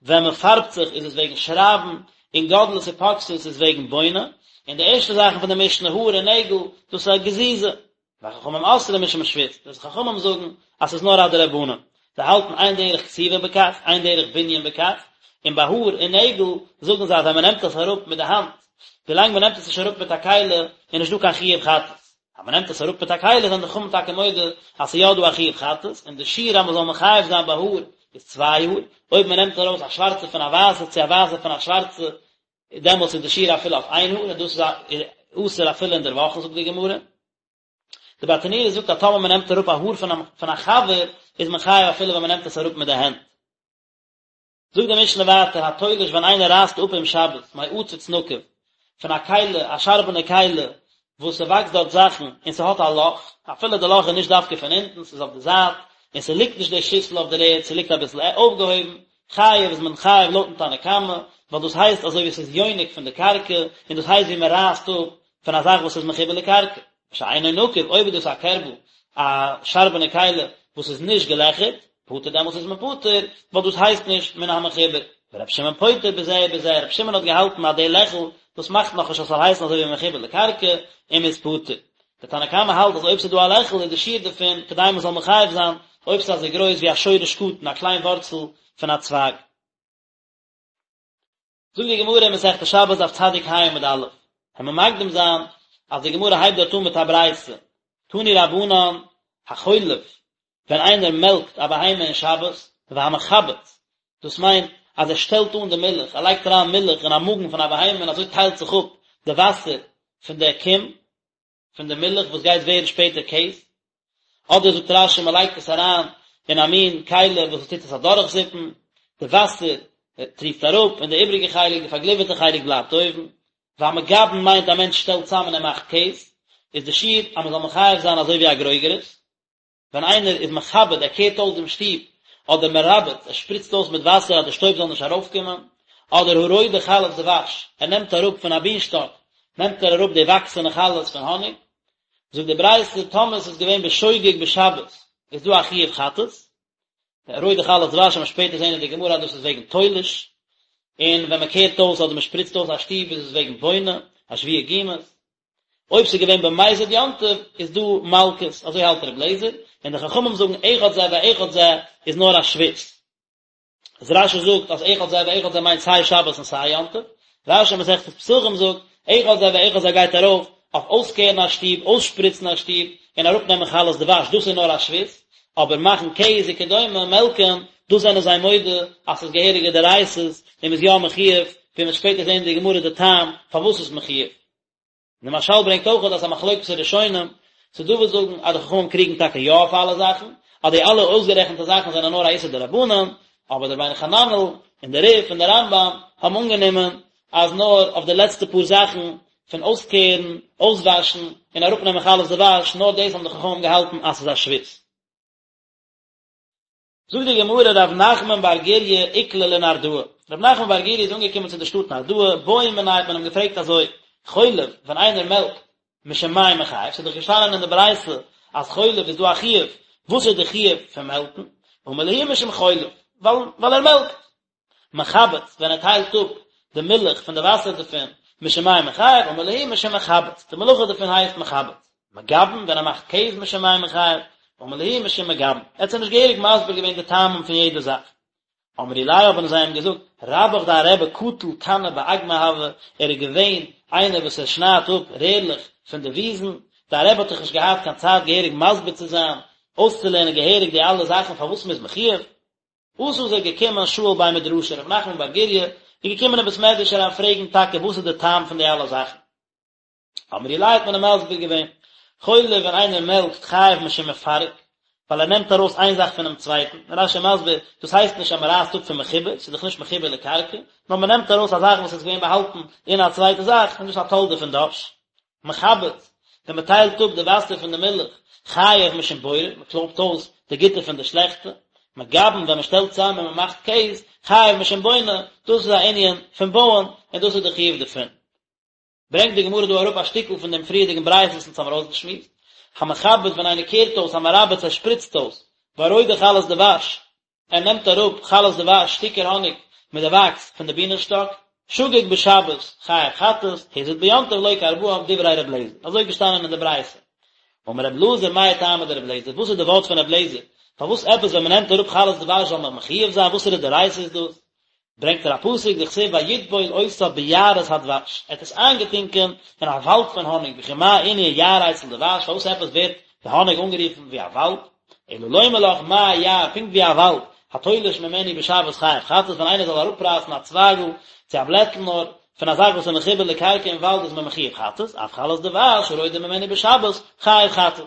ווען מען פארבט זיך איז עס וועגן שרייבן, און גודלת ופוקסת איז וועגן בונה, און די ערשטע זאכן פון די משנה האר און נעגל, דאס איז א גזיזה. וחכמים אוסרים משום שבות, די חכמים זאגן אז ס'איז נאר א דרבנן, זיי האלטן אין דרך כתיבה בכך, אין דרך בנין בכך, און ביי האר און נעגל זאגן זיי אז ווען מ'נעמט עס אראפ מיט די האנט, ווילאנג מ'נעמט עס נישט אראפ מיט א כלי, איז נישט דא קיין חיוב חטאת. אז מ'נעמט עס אראפ מיט א כלי זענען די חכמים טאקע מודה אז ס'איז יא דא א חיוב חטאת, און די שיעור אז מ'זאל מחייב זיין ביי האר איז צוויי האר, אויב מ'נעמט ארויס א שווארצע פון א ווייסע צו א ווייסע פון א שווארצע, דעמאלטס איז די שיעור אפילו אויף איין האר, און דאס איז אסור אפילו אין דער וואכן זאגט די גמרא. די ברטנורא זאגט אז טאמער מען נעמט אראפ א האר פון א חבר איז מען חייב אפילו ווען מען נעמט עס אראפ מיט די הענט. זאגט די משנה ווייטער התולש ווען איינער רייסט אפ אום שבת מעציץ נקוב פון א כלי א שארבענע כלי וואס ס'וואקסט דארט זאכן און ס'האט א לאך אפילו די לאך איז נישט דווקא פון אונטן ס'איז אויף די זייט און ס'ליגט נישט די שיסל אויף דער ערד ס'ליגט אביסל אויפגעהויבן חייב איז מען חייב לויטן תנא קמא ווייל דאס הייסט אזוי ווי ס'איז יונק פון די קרקע און דאס הייסט ווי מ'רייסט אפ פון א זאך וואס איז מחובר לקרקע. שאינו נקוב, אויב איז דאס א קערבל, א שארבענע כלי, וואס איז נישט געלעכערט, פטור דעמאלטס איז מען פטור, ווייל דאס הייסט נישט מן המחובר. ורבי שמעון פוטר בזה ובזה, רבי שמעון האט געהאלטן אז די לעכל, דאס מאכט נאכנישט אז ס'זאל הייסן אזוי ווי מחובר לקרקע, און מ'איז פטור. דער תנא קמא האלט אז אויב ס'איז דא א לעכל איז די שיעור דערפון כדי מ'זאל מחייב זיין, אויב ס'איז אזוי גרויס ווי א שורש קטן, א קליין ווארצל פון א צווייג. זאגט די גמרא אין מסכת שבת דף צדיק ה עמוד א', וועלן מיר מקדים זיין אז די גמרא הייבט דארט אן מיט א ברייתא, תנו רבנן, החולב, ווען איינער מעלקט א בהמה אין שבת, והמחבץ, דאס מיינט אז ער שטעלט אן די מילך, ער לייגט אריין מילך אין א מאגן פון א בהמה און אזוי טיילט זיך אפ די וואסער פון די קום, פון די מילך וואס גייט ווערן שפעטער קעז, אדער זאגט רש"י מען לייגט עס אריין אין א מין כלי וואס עס טוט עס אדורכזיפן, די וואסער טריפט אראפ און די איבריגע חלק, די פארגליווערטע חלק בלייבט אויבן. והמגבן מיינט א מענטש שטעלט צאם און ער מאכט קעז, איז די שיעור אז מען זאל מחייב זיין אזוי ווי א גרוגרת. ווען איינער איז מכבד, ער קערט אויס דעם שטוב, אדער מרבץ, ער שפריצט אויס מיט וואסער אז די שטויב זאל נישט ארויפקומען, אדער הרודה חלות דבש, ער נעמט אראפ פון א בינשטאק, נעמט ער אראפ די וואקסענע חלות פון האניג. זאגט די ברייתא, טאמער עס איז געווען בשוגג בשבת, איז דא א חיוב חטאת, רודה חלות דבש וועט מען שפעטער זען אין די גמרא אז דאס איז וועגן תולש, און ווען מען קערט אויס אדער מען שפריצט אויס א שטוב איז עס וועגן בונה, אשווי גומות. אויב ס'איז געווען במזיד יום טוב איז דא מלקות, אזוי האלט ר' לעזער, און די חכמים זאגן אחד זה ואחד זה איז נאר א שבות. איז רש"י זאגט אז אחד זה ואחד זה מיינט סיי שבת און סיי יום טוב, רש"י אין מסכת פסחים זאגט אחד זה ואחד זה גייט ארויף אויף אויסקערן א שטוב, אויסשפריצן א שטוב, און אראפנעמען חלות דבש, דאס איז נאר א שבות, אבער מאכן קעז וכדומה, מעלקען, דאס זענען זיי מודה אז ס'איז געהעריגע דאורייתא'ס און מ'איז יא מחויב, ווי מ'וועט שפעטער זען אין די גמרא די טעם פארוואס ס'איז מחויב. און די מהרש"ל ברענגט אויך אז ס'איז א מחלוקת הראשונים, ס'איז דא וואס זאגן אז די חכמים קריגן טאקע יא אויף אלע זאכן, אז די אלע אויסגערעכנטע זאכן זענען נאר א איסור דרבנן, אבער דער רבינו חננאל און דער רי"ף און דער רמב"ם האבן אנגענומען אז נאר אויף די לעצטע פאר זאכן פון אויסקערן, אויסוואשן, און אראפנעמען חלות דבש, נאר דאס האבן די חכמים געהאלטן אז ס'איז א שבות. זאגט די גמרא רב נחמן בר גוריא איקלע לנהרדעא, רב נחמן בר גוריא איז אנגעקומען צו די שטאט נהרדעא, בעו מיניה האט מען אים געפרעגט אזוי, חולב, ווען איינער מעלקט, משום מאי מיחייב, ס'איז דאך געשטאנען אין די ברייתא אז חולב איז דא א חיוב, וואס איז די חיוב פון מעלקן? אמר להו משום חולב, ווייל ער מעלקט. מחבץ, ווען ער טיילט אפ די מילך פון די וואסער דערפון, משום מאי מיחייב, אמר להו משום מחבץ, די מלאכה דערפון הייסט מחבץ. מגבן, ווען ער מאכט קעז משום מאי מיחייב, אמר להו משום מגבן. ער האט זיי נישט געהעריג מסביר געווען די טעמים פון יעדע זאך. אמרו ליה האבן זיי אים געזאגט, רבך דיין רבי קטיל כני באגמא הוה, ער איז געווען איינער וואס ער שניידט אפ רערלעך פון די וויזן, דיין רבי האט דאך נישט געהאט קיין צייט געהעריג מסביר צו זיין, אויסצולערנען געהעריג די אלע זאכן פארוואס מ'איז מחויב. אתא איז ער געקומען שאיל בי מדרשא רב נחמן בר גוריא איז געקומען אין בית מדרש אריין פרעגן טאקע וואס איז די טעם פון די אלע זאכן. אמרו ליה האט מען אים מסביר געווען, חולב ווען איינער מעלקט חייב משום מפרק, ווייל ער נעמט ארויס איין זאך פונעם צווייטן, רש"י מסביר, דאס הייסט נישט אז מען רייסט אפ פון מחובר, ס'איז דאך נישט מחובר לקרקע, נאר מען נעמט ארויס א זאך וואס איז געווען באהאלטן אין א צווייטע זאך, און דאס איז א תולדה פון דש. מחבץ, ווען מען טיילט אפ די וואסער פון די מילך, חייב משום בורר, מען קלויבט אויס די גוטע פון די שלעכטע. מגבן, ווען מען שטעלט צאם און מען מאכט קעז, חייב משום בונה, דאס איז א ענין פון בויען, און דאס איז די חיוב דערפון. ברענגט די גמרא דא אראפ א שטיקל פון דעם פריערדיגן ברייתא וואס אונז האבן ארויסגעשמועסט, המחבץ ווען איינער קערט אויס, המרבץ ער שפריצט אויס, והרודה חלות דבש, ער נעמט אראפ חלות דבש, שטיקער האניג מיט די וואקס פון די בינען שטאק, שגג בשבת, חייב חטאת, הזיד ביום טוב לוקה ארבעים, דברי ר' אליעזר, אזוי געשטאנען אין די ברייתא. אמר ר' אלעזר מאי טעמא דר' אליעזר, וואס איז די ווארט פון ר' אליעזר, פארוואס עפעס ווען מען נעמט אראפ חלות דבש זאל מען מחויב זיין, וואסערע דאורייתא איז דאס? ברענגט ער א פסוק דכתיב ויטבול אותה ביערות הדבש, ער האט עס איינגעטונקען אין א וואלד פון האניג, וכי מה ענין יער אצל דבש, פארוואס עפעס ווערט די האניג אנגערופן ווי א וואלד, אלא לומר לך מה יער, פונקט ווי א וואלד, התולש ממנו בשבת חייב חטאת, ווען איינער זאל אראפרייסן א צווייגל צו א בלעטל נאר פון א זאך וואס איז מחובר לקרקע אין וואלד איז מען מחויב חטאת, אף חלות דבש הרודה ממנו בשבת חייב חטאת.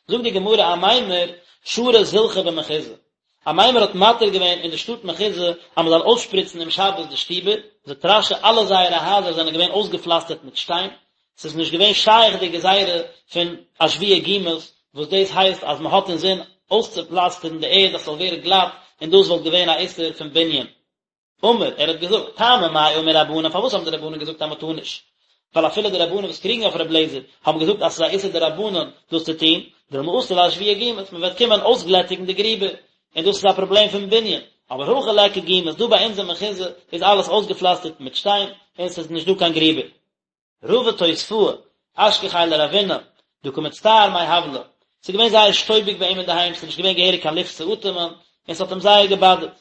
זאגט די גמרא אמימר שרא זילחא במחוזא, אמימר האט מתיר געווען אין די שטאט מחוזא אז מען זאל אויסשפריצן אום שבת די שטיבער, זאגט רש"י אלע זייערע הייזער זענען געווען אויסגעפלאסטערט מיט שטיין, ס'איז נישט געווען שייך די גזירה פון אשווי גומות, וואס דאס הייסט אז מען האט אינזין אויסצופלאסטערן די ערד אז ס'זאל ווערן גלאט, און דאס וואלט געווען א איסור פון בנין. אמר, ער האט געזאגט, טעמא מאי אמור רבנן, פארוואס האבן די רבנן געזאגט אז מען טאר נישט? ווייל אפילו די רבנן וואס קריגן אויף ר' אליעזר, האבן געזאגט אז ס'איז א איסור דרבנן דאס צו טון, דילמא אתי לאשויי גומות, מען וועט קומען אויסגלעטיגן די גריבער, און דאס איז א פראבלעם פון בנין, אבער הכא ליכא גומות, דא ביי אונז אין מחוזא איז אלעס אויסגעפלאסטערט מיט שטיין, און ס'איז נישט דא קיין גריבער. רבא תוספאה, אשכחיה לרבינא, דקא מצטער מהבלא, ס'איז געווען זייער שטויביג ביי אים אינדערהיים, ס'איז נישט געווען געהעריג קיין לופט צו אטעמען, און ס'האט אים זייער געבאדערט.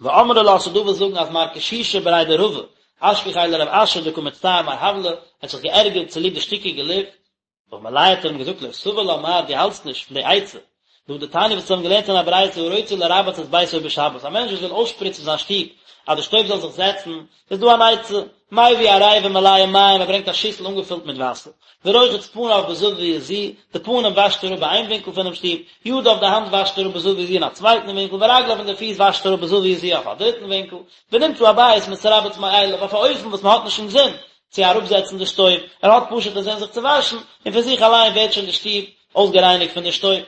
ואמרי לה ס'דא וואס זאגן אז מר קשישא בריה דרבא, אשכחיה לרב אשי דקא מצטער מהבלא, ער האט זיך געערגערט צוליב די שטיקיגע לופט. אמר ליה האט ער אים געזאגט לא סבר לה מר דו האלטסט נישט פון די עצה, להא דתניא וואס האבן געלערנט אין א ברייתא הרוצה לרבץ את ביתו בשבת, א מענטש וואס וויל אויסשפריצן זיין שטוב אז די שטויב זאל זיך זעצן, איז דא אן עצה, מביא עריבה מלאה מים, ער ברענגט א שיסל אנגעפילט מיט וואסער, ורוחץ פניו בזוית זו, די פנים וואשט ער אפ ביי איין ווינקל פונעם שטוב, ידיו די האנט וואשט ער אפ בזוית זו אין א צווייטן ווינקל, ורגליו און די פיס וואשט ער אפ בזוית זו אויף א דריטן ווינקל, ונמצא הבית מתרבץ מאליו, אויף א אופן וואס מען האט נישט אינזין צו אראפזעצן די שטויב, ער האט פשוט אינזין זיך צו וואשן, און פון זיך אליין ווערט שוין די שטוב אויסגערייניגט פון די שטויב.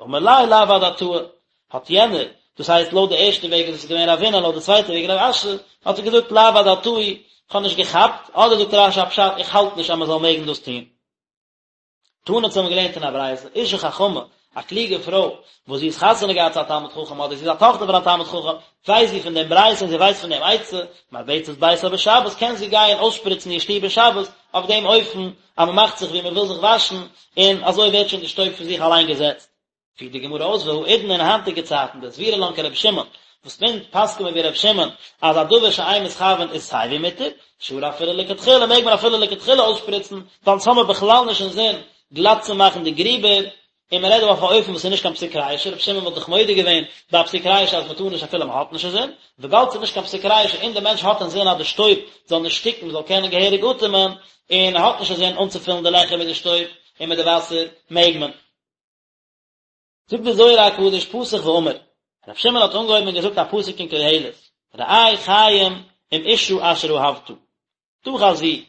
אמר ליה לאו אדעתאי, האט יענער, דאס הייסט לויט די ערשטע וועג איז עס געווען רבינא לויט די צווייטע וועג רב אשי, האט ער געזאגט לאו אדעתאי, איך האב נישט געכאפט, אדער זאגט רש"י א פשט איך האלט נישט אז מען זאל מעגן דאס טון. תנא אונז האבן געלערנט אין א ברייתא, אשה חכמה, א קלוגע פרוי, וואס זי איז חתונה געהאט צו א תלמיד חכם אדער זי איז א טאכטער פון א תלמיד חכם, ווייסט זי פון דעם ברייתא און זי ווייסט פון דעם עצה, מרבצת ביתה בשבת, קען זי גיין אויסשפריצן איר שטוב אין שבת, אויף דעם אופן אז מען מאכט זיך ווי מען וויל זיך וואשן, און אזוי ווערט שוין די שטויב פון זיך אליין געזעצט. פירט די גמרא אויס והאידנא אין היינטיגע צייטן דסבירא לן כרבי שמעון, וואס אונז פסק'ן מיר ווי רבי שמעון אז א דבר שאין מתכוין איז סיי ווי מותר, שרי אפילו לכתחילה מעג מען אפילו לכתחילה אויסשפריצן, ווייל אונז האמיר בכלל נישט אינזין גלאט צו מאכן די גריבער. און מען רעדט דא אויף א אופן וואס איז נישט קיין פסיק רישא, רבי שמעון וואלט דאך מודה געווען ביי א פסיק רישא אז מען טאר נישט אפילו מען האט נישט אינזין, וויבאלד ס'איז נישט קיין פסיק רישא און דער מענטש האט אינזין אז די שטויב זאל נישט שטיקן מען זאל קענען געהעריג אטעמען, און ער האט נישט אינזין אנצופילן די לעכער מיט די שטויב און מיט די וואסער, מעג מען. זאגט דער זוהר הקדוש פתח ואמר, רבי שמעון האט אנגעהויבן און געזאגט א פסוק אין קהלת, ראה חיים עם אשה אשר אהבת, תא חזי,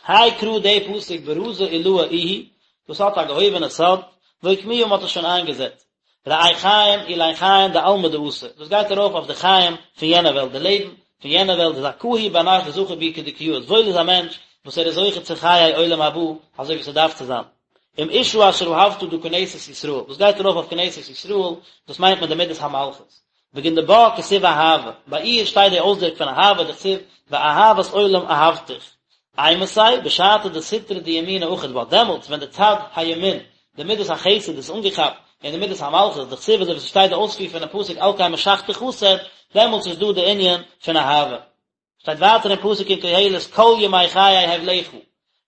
האי קרא די פסוק ברזא עילאה איהו, דאס האט א געהויבענע סוד, ואוקמוה מ'האט עס שוין איינגעזעצט. ראה חיים אלין חיים דעלמא דאתי, דאס גייט ארויף אויף די חיים פון יענע וועלט, די לעבן פון יענע וועלט דזכאה הוא בר נש דזכי בהו כדקא יאות, וואויל איז א מענטש וואס ער איז זוכה צו חיי עולם הבא אזוי ווי ס'דארף צו זיין. עם אשה אשר אהבת דא כנסת ישראל, דאס גייט ארויף אויף כנסת ישראל, דאס מיינט מען די מידת המלכות. בגין דבה כתיב אהבה, ביי איר שטייט די אויסדרוק פון אהבה דכתיב ואהבת עולם אהבתיך. אימתי, בשעתא דסטרא דימינא אחיד בה, דעמאלטס ווען די צד הימין, די מידת החסד איז אנגעכאפט אין די מידת המלכות, דכתיב אזוי ווי ס'שטייט די אויספיר פונעם פסוק על כן משכתי חסד, דעמאלטס איז דא די ענין פון אהבה. שטייט ווייטער אין פסוק אין קהלת כל ימי חיי הבלך,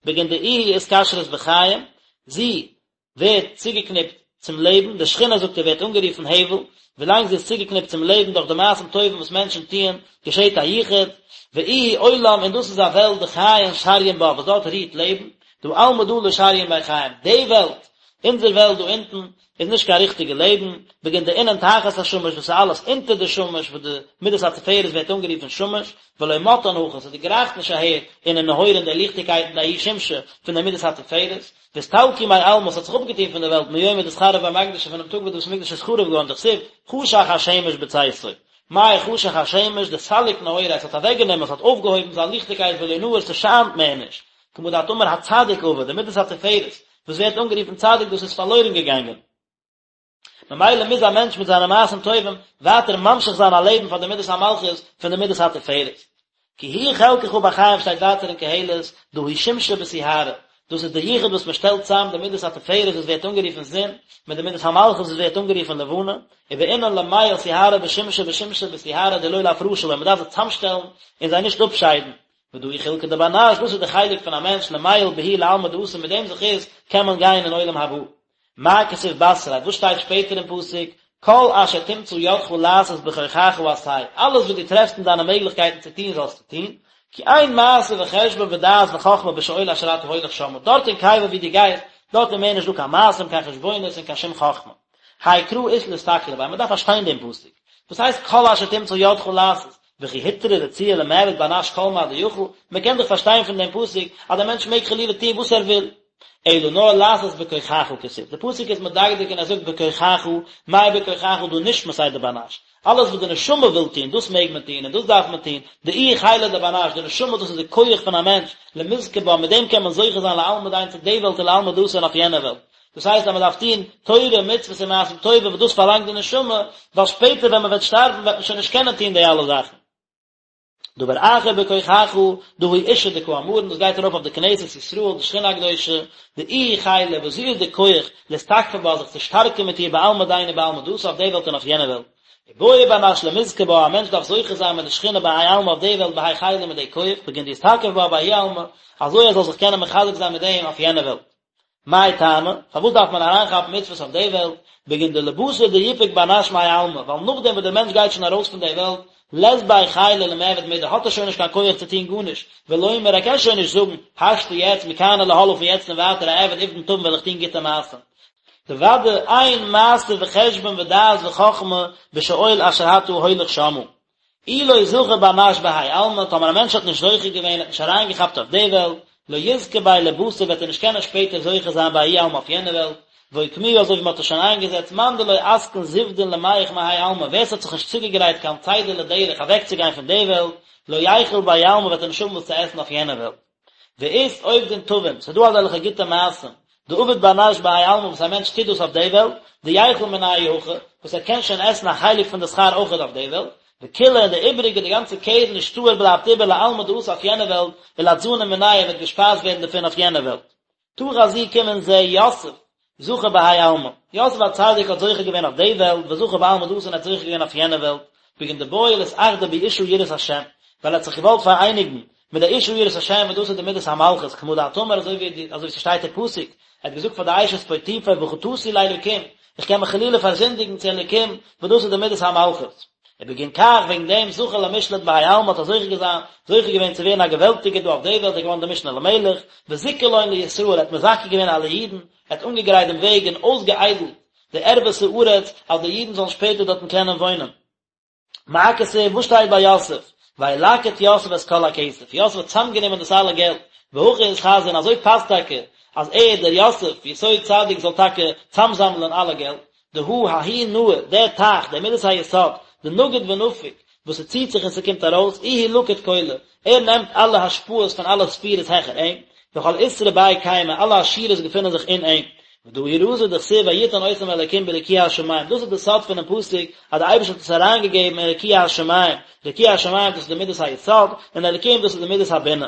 בגין דאיהי אתקשרת בחיים, זי ווערט צוגעקניפט צום לעבן, די שכינה זאגט ער ווערט אנגערופן הבל, ווילאנג זי איז צוגעקניפט צום לעבן דורך די מעשים טובים וואס מענטשן טוען, געשעט א יחוד, ואיהי עולם און דאס איז א וועלט דחיין שריין בה וואס דארט רוהט לעבן, דהא עלמא דא לא שריין ביה חיים, די וועלט, אונזער וועלט דא אונטן, איז נישט קיין ריכטיגע לעבן, בגין דאינון תחת השמש וואס איז אלעס אונטער די שמש וואס די מידת התפארת ווערט אנגערופן שמש, ולא מטאן הכא, ס'דערגרייכט נישט אהער אינון נהורין די ליכטיגקייטן דההוא שמשא פון די מידת התפארת, ואסתלקו מעלמא, ס'האט זיך אפגעטון פון די וועלט מיומא דאתחרב בי מקדשא פונעם טאג וואס די בית המקדש איז חרוב געווארן דכתיב חשך השמש בצאתו. מאי חשך השמש דסליק נהוריה עס האט אוועקגענומען עס האט אויפגעהויבן זיין ליכטיגקייט ולא נהיר ס'שיינט מער נישט, כמה דאת אמר הצדיק אבד, די מידת התפארת וואס ווערט אנגערופן צדיק דאס איז פארלוירן געגאנגען. ממילא מוז א מענטש מיט זיינע מעשים טובים ווייטער ממשיך זיין א לעבן פאר די מידת המלכות פון די מידת התפארת. כי הוא חלקך בחיים שטייט ווייטער אין קהלת, דא הוא שמשא בסיהרא, דאס איז די יחוד וואס מען שטעלט צאם די מידת התפארת וואס ווערט אנגערופן זון, מיט די מידת המלכות וואס ווערט אנגערופן לבנה, ובעינן למיעל סיהרא בשמשא ושמשא בסיהרא דלא לאפרשא בין, מען דארף זיי צאמשטעלן און זיי נישט אפשיידן. ודא הוא חולקא דבר נש, דאס איז די חלק פון א מענטש למיעל בהו לעלמא דאתי מיט דעם זכות קען מען גיין אין עולם הבא. מה כתיב בתריה, וואס שטייט שפעטער אין פסוק, כל אשר תמצא ידך לעשות בכוחך עשה, אלעס וואס דו טרעפסט אין דיינע מעגליכקייטן צו טון זאלסטו טון, כי אין מעשה וחשבון ודעת וחכמה בשאול אשר אתה הולך שמה, דארט אין קבר וואו דו גייסט, דארט איז מער נישט דא קיין מעשים, קיין חשבונות און קיין שום חכמה. האי קרא אית לאסתכלא ביה, מען דארף פארשטיין דעם פסוק. וואס הייסט כל אשר תמצא ידך לעשות? וכי הותרה רצועה למעבד בר נש כל מה דיכול, מען קען דאך פארשטיין פון דעם פסוק אז דער מענטש מעג חלילה טון וואס ער וויל. אלא נאר לעשות בכוחך כתיב, די פסוק איז מדקדק און ער זאגט בכוחך, מאי בכוחך דהא נשמתיה דבר נש, אלעס וואס די נשמה וויל טון, דאס מעג מען טון און דאס דארף מען טון, דאיהי חילא דבר נש, די נשמה דאס איז די כח פון א מענטש, למזכי בה, מיט דעם קען מען זוכה זיין לעלמא דין צו די וועלט ולעלמא דאתי און אויף יענע וועלט. דאס הייסט אז מען דארף טון תורה, מצוות און מעשים טובים וואס דאס פארלאנגט די נשמה, ווייל שפעטער ווען מען וועט שטארבן וועט מען שוין נישט קענען טון די אלע זאכן. דבר אחר בכוחך, דא הוא אשה דקאמרן, דאס גייט ארויף אויף די כנסת ישראל, די שכינה הקדושה, דאיהי חילא, וואס זי איז די כח, לאתתקפא בה, זיך צו שטארקן מיט איר בעלמא דין ובעלמא דאתי אויף די וועלט און אויף יענע וועלט. ובעי בר נש למזכי בה, א מענטש דארף זוכה זיין מיט די שכינה בהאי עלמא אויף די וועלט בהאי חילא מיט די כח, בגין דיתתקף בה בהאי עלמא, אזוי ער זאל זיך קענען מחזק זיין מיט דעם אויף יענע וועלט. מאי טעמא, פארוואס דארף מען אריינכאפן מצוות אויף די וועלט, בגין דלבתר דיפוק בר נש מהאי עלמא, ווייל נאכדעם וואס דער מענטש גייט שוין ארויס פון די וועלט, לית ביה חילא למעבד מידי, האט ער שוין נישט קיין כח צו טון גארנישט, ולומר ער קען שוין נישט זאגן, השתא יעצט מכאן ולהלאה פון יעצט און ווייטער אעביד עובדין טבין וועל איך טון גוטע מעשים. דודאי אין מעשה וחשבון ודעת וחכמה בשאול אשר אתה הולך שמה. אי לא זכה בר נש בהאי עלמא, טאמער א מענטש האט נישט זוכה געווען, האט נישט אריינגעכאפט אויף די וועלט, לא יזכה ביה לבתר וועט ער נישט קענען שפעטער זוכה זיין בהאי עלמא אויף יענע וועלט, ואוקמוה אזוי ווי מען האט עס שוין איינגעזעצט, מאן דלא אתקין זוודין למיהך מהאי עלמא, ווער ס'האט זיך נישט צוגעגרייט קיין צידה לדרך אוועקצוגיין פון די וועלט, לא ייכול בהאי עלמא וועט ער נישט האבן וואס צו עסן אויף יענע וועלט. ואית עובדין טבין, ס'איז דא אזעלכע גוטע מעשים, דעביד בר נש בהאי עלמא וואס א מענטש טוט דאס אויף די וועלט, דייכול מינייהו הכא, וואס ער קען שוין עסן א חלק פון די שכר אויכעט אויף די וועלט, וכולא און די איבעריגע, די גאנצע קרן אשתאר בלייבט איבער לעלמא דאתי אויף יענע וועלט, ולאתזנא מיניה וועט געשפייזט ווערן דערפון אויף יענע וועלט. תא חזי קום און זע יוסף, זכה בהאי עלמא. יוסף הצדיק האט זוכה געווען אויף די וועלט, וזכה בעלמא דאתי און ער האט זוכה געווען אויף יענע וועלט, בגין דבעי לאתאחדא באשה יראת השם, ווייל ער האט זיך געוואלט פאראייניגן מיט די אשה יראת השם וואס דאס איז די מידת המלכות, כמה דאת אמר אזוי ווי אזוי ווי ס'שטייט אין פסוק, ער האט געזאגט פאר די אשת פוטיפר וחטאתי לאלקים, איך קען מיך חלילה פארזינדיגן צו אלקים, וואס דאס איז די מידת המלכות. ובגין כך, וועגן דעם, זכה למשלט בהאי עלמא האט ער זוכה געזיין, זוכה געווען צו ווערן א געוועלטיגער דא אויף די וועלט, ער איז געווארן דער משנה למלך, וזיכה לון לישראל, ער האט מזכה געווען אלע אידן, ער האט אנגעגרייט דעם וועג און אויסגעאיידלט די ערוות הארץ, אז די אידן זאלן שפעטער דארטן קענען וואוינען. מה כתיב, וואס שטייט ביי יוסף? וילקט יוסף את כל הכסף, יוסף האט צאמגענומען דאס אלע געלט, והכי אתחזי און אזוי פאסט טאקע אז ער, דער יוסף, יסוד צדיק זאל טאקע צאמזאמלען אלע געלט, דהא ההוא נהר, דער טייך, דער מידת היסוד, דנגיד ונפיק, וואס ס'ציט זיך און ס'קומט ארויס, איהו לקיט כולא, ער נעמט אלע השפעות פון אלע ספירות העכער אים, וכל עותרא ביה קיימא, אלע עשירות געפינען זיך אין אים. ודא הוא רזא דכתיב ויתן אותם אלקים ברקיע השמים, דאס איז די סוד פונעם פסוק אז די אייבערשטער האט עס אריינגעגעבן אין רקיע השמים, רקיע השמים דאס איז די מידת היסוד, און אלקים דאס איז די מידת הבינה.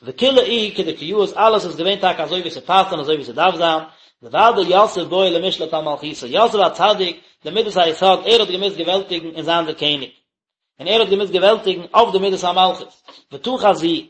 וכולא איהו כדקא יאות אלעס איז געווען טאקע אזוי ווי ס'פאסט און אזוי ווי ס'דארף זיין, דודאי יוסף בעי למשלט על מלכותא, יוסף הצדיק, די מידת היסוד, ער האט געמוזט געוועלטיגן און זיין דער קעניג. און ער האט געמוזט געוועלטיגן אויף די מידת המלכות. ותא חזי,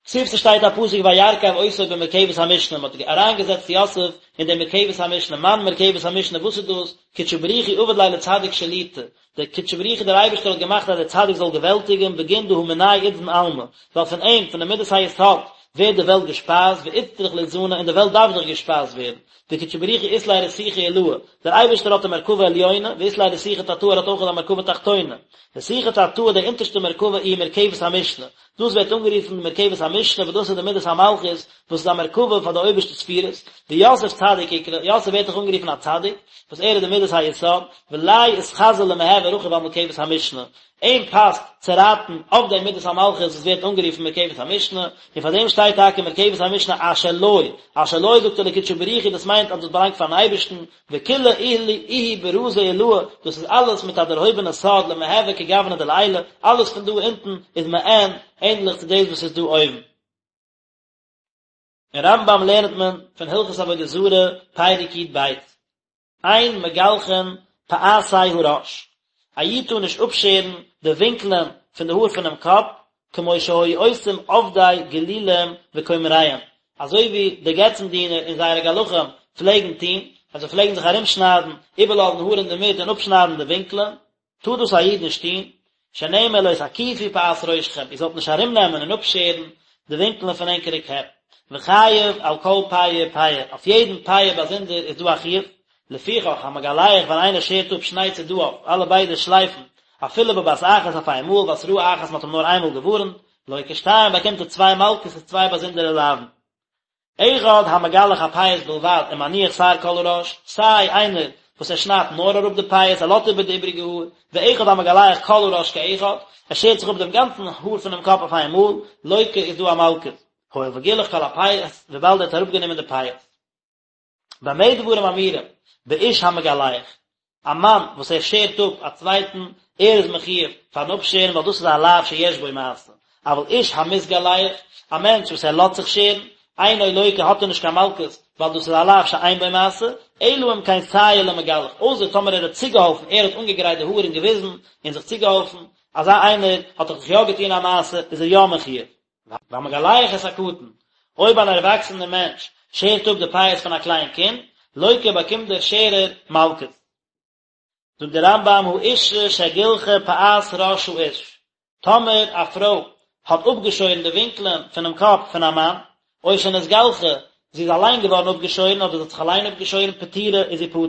כתיב ס'שטייט א פסוק וירכב אותו במרכבת המשנה, מ'האט אריינגעזעצט יוסף אין די מרכבת המשנה, מאן מרכבת המשנה, וואס איז דאס? קודשא בריך הוא עביד ליה לצדיק שליטא, דער קודשא בריך הוא דער אייבערשטער האט געמאכט אז דער צדיק זאל געוועלטיגען בגין דהא מיניה אתזן עלמא, ווייל פון אים, פון די מידת היסוד, ווערט די וועלט געשפייזט, ואצטריך לאתזנא, און די וועלט דארף דאך געשפייזט ווערן, וקודשא בריך הוא אית ליה רתיכא עילאה, דער אייבערשטער האט א מרכבה עליונה, ואית ליה רתיכא תתאה ער האט אויך א מרכבה תחתונה, רתיכא תתאה די אונטערשטע מרכבה איהי מרכבת המשנה, דאס ווערט אנגערופן מרכבת המשנה וואס דאס איז די מידת המלכות וואס איז א מרכבה פאר די אויבערשטע ספירות, ויוסף צדיק אקרי, יוסף ווערט דאך אנגערופן א צדיק, וואס ער איז די מידת היסוד, וליה אתחזי למהוי רכיב על מרכבת המשנה, אים פאסט צו רייטן אויף די מידת המלכות וואס ווערט אנגערופן מרכבת המשנה, און פאר דעם שטייט טאקע מרכבת המשנה אשר לו, אשר לו זאגט ער לקודשא בריך הוא דאס מיינט אז דאס באלאנגט פארן אייבערשטן, וכולא איהו ברזא עילאה, דאס איז אלעס מיט א דערהויבענע סוד למהוי כגוונא דלעילא, אלעס פון דא אונטן איז מעין ענדליך צו דאס וואס איז דא אויבן. אין רמב"ם לערנט מען פון הלכות עבודה זרה, פרק י"ב, אין מגלחין פאתי הראש, א איד טאר נישט אפשערן די ווינקלען פון די האר פונעם קאפ, כמו שהיו עושים עובדי גילולים וכומריהם, אזוי ווי די געצן דינער און זייערע גלחים פלעגן טון, אז זיי פלעגן זיך ארומשניידן, איבערלאזן האר אינדערמיט און אפשניידן די ווינקלען, טאר דאס א איד נישט טון, שנאמר לא תקיפו פאת ראשכם, איר זאלט נישט ארומנעמען און אפשערן די ווינקלען פון ענקערע קעפ, וחייב על כל פאה ופאה, אויף יעדן פאה באזונדער איז דא א חיוב, לפיכך המגלח ווען איינער שערט אפ שני צדעיו, אלע ביידע שלייפן, אפילו בבת אחת אויף איין מאל, והתראה אחת מען האט אים נאר איינמאל געווארנט, לוקה שתיים באקומט ער צוויי מלקות איז צוויי באזונדערע לאוין. אחד המגלח הפאות בלבד ומניח שער כל הראש, סיי איינער וואס ער שניידט נאר אראפ די פאות ער לאזט איבער די איבריגע האר, ואחד המגלח כל הראש כאחד, ער שערט זיך אפ דעם גאנצן האר פונעם קאפ אויף איין מאל, לוקה איז דא א מלקות. הואיל וגילח כל הפאות, וויבאלד ער האט אראפגענומען די פאות. במה דברים אמורים, באיש המגלח, א מאן וואס ער שערט אפ א צווייטן, ער איז מחיוב פארן אפשערן ווייל דאס איז א לאו שיש בו מעשה, אבל איש המתגלח, א מענטש וואס ער לאזט זיך שערן, אינו לוקה האט ער נישט קיין מלקות, ווייל דאס איז א לאו שאין בו מעשה, אלא אם כן סייע למגלח, אויסער טאמער ער האט צוגעהאלפן, ער האט אנגעגרייט די האר און געוויזן און זיך צוגעהאלפן, אזא איינער האט דאך זיך יא געטון א מעשה, איז ער יא מחיוב. והמגלח את הקטן, אויב אן ערוואקסענער מענטש שערט אפ די פאות פון א קליין קינד, לוקה באקומט דער שערער מלקות. זאגט דער רמב"ם האשה שגילחה פאת ראש האיש, טאמער א פרוי האט אפגעשוירן די ווינקלען פונעם קאפ פון א מאן, או שנתגלחה, זי איז אליין געווארן אפגעשוירן אדער זי האט זיך אליין אפגעשוירן פטורה איז זי פטור.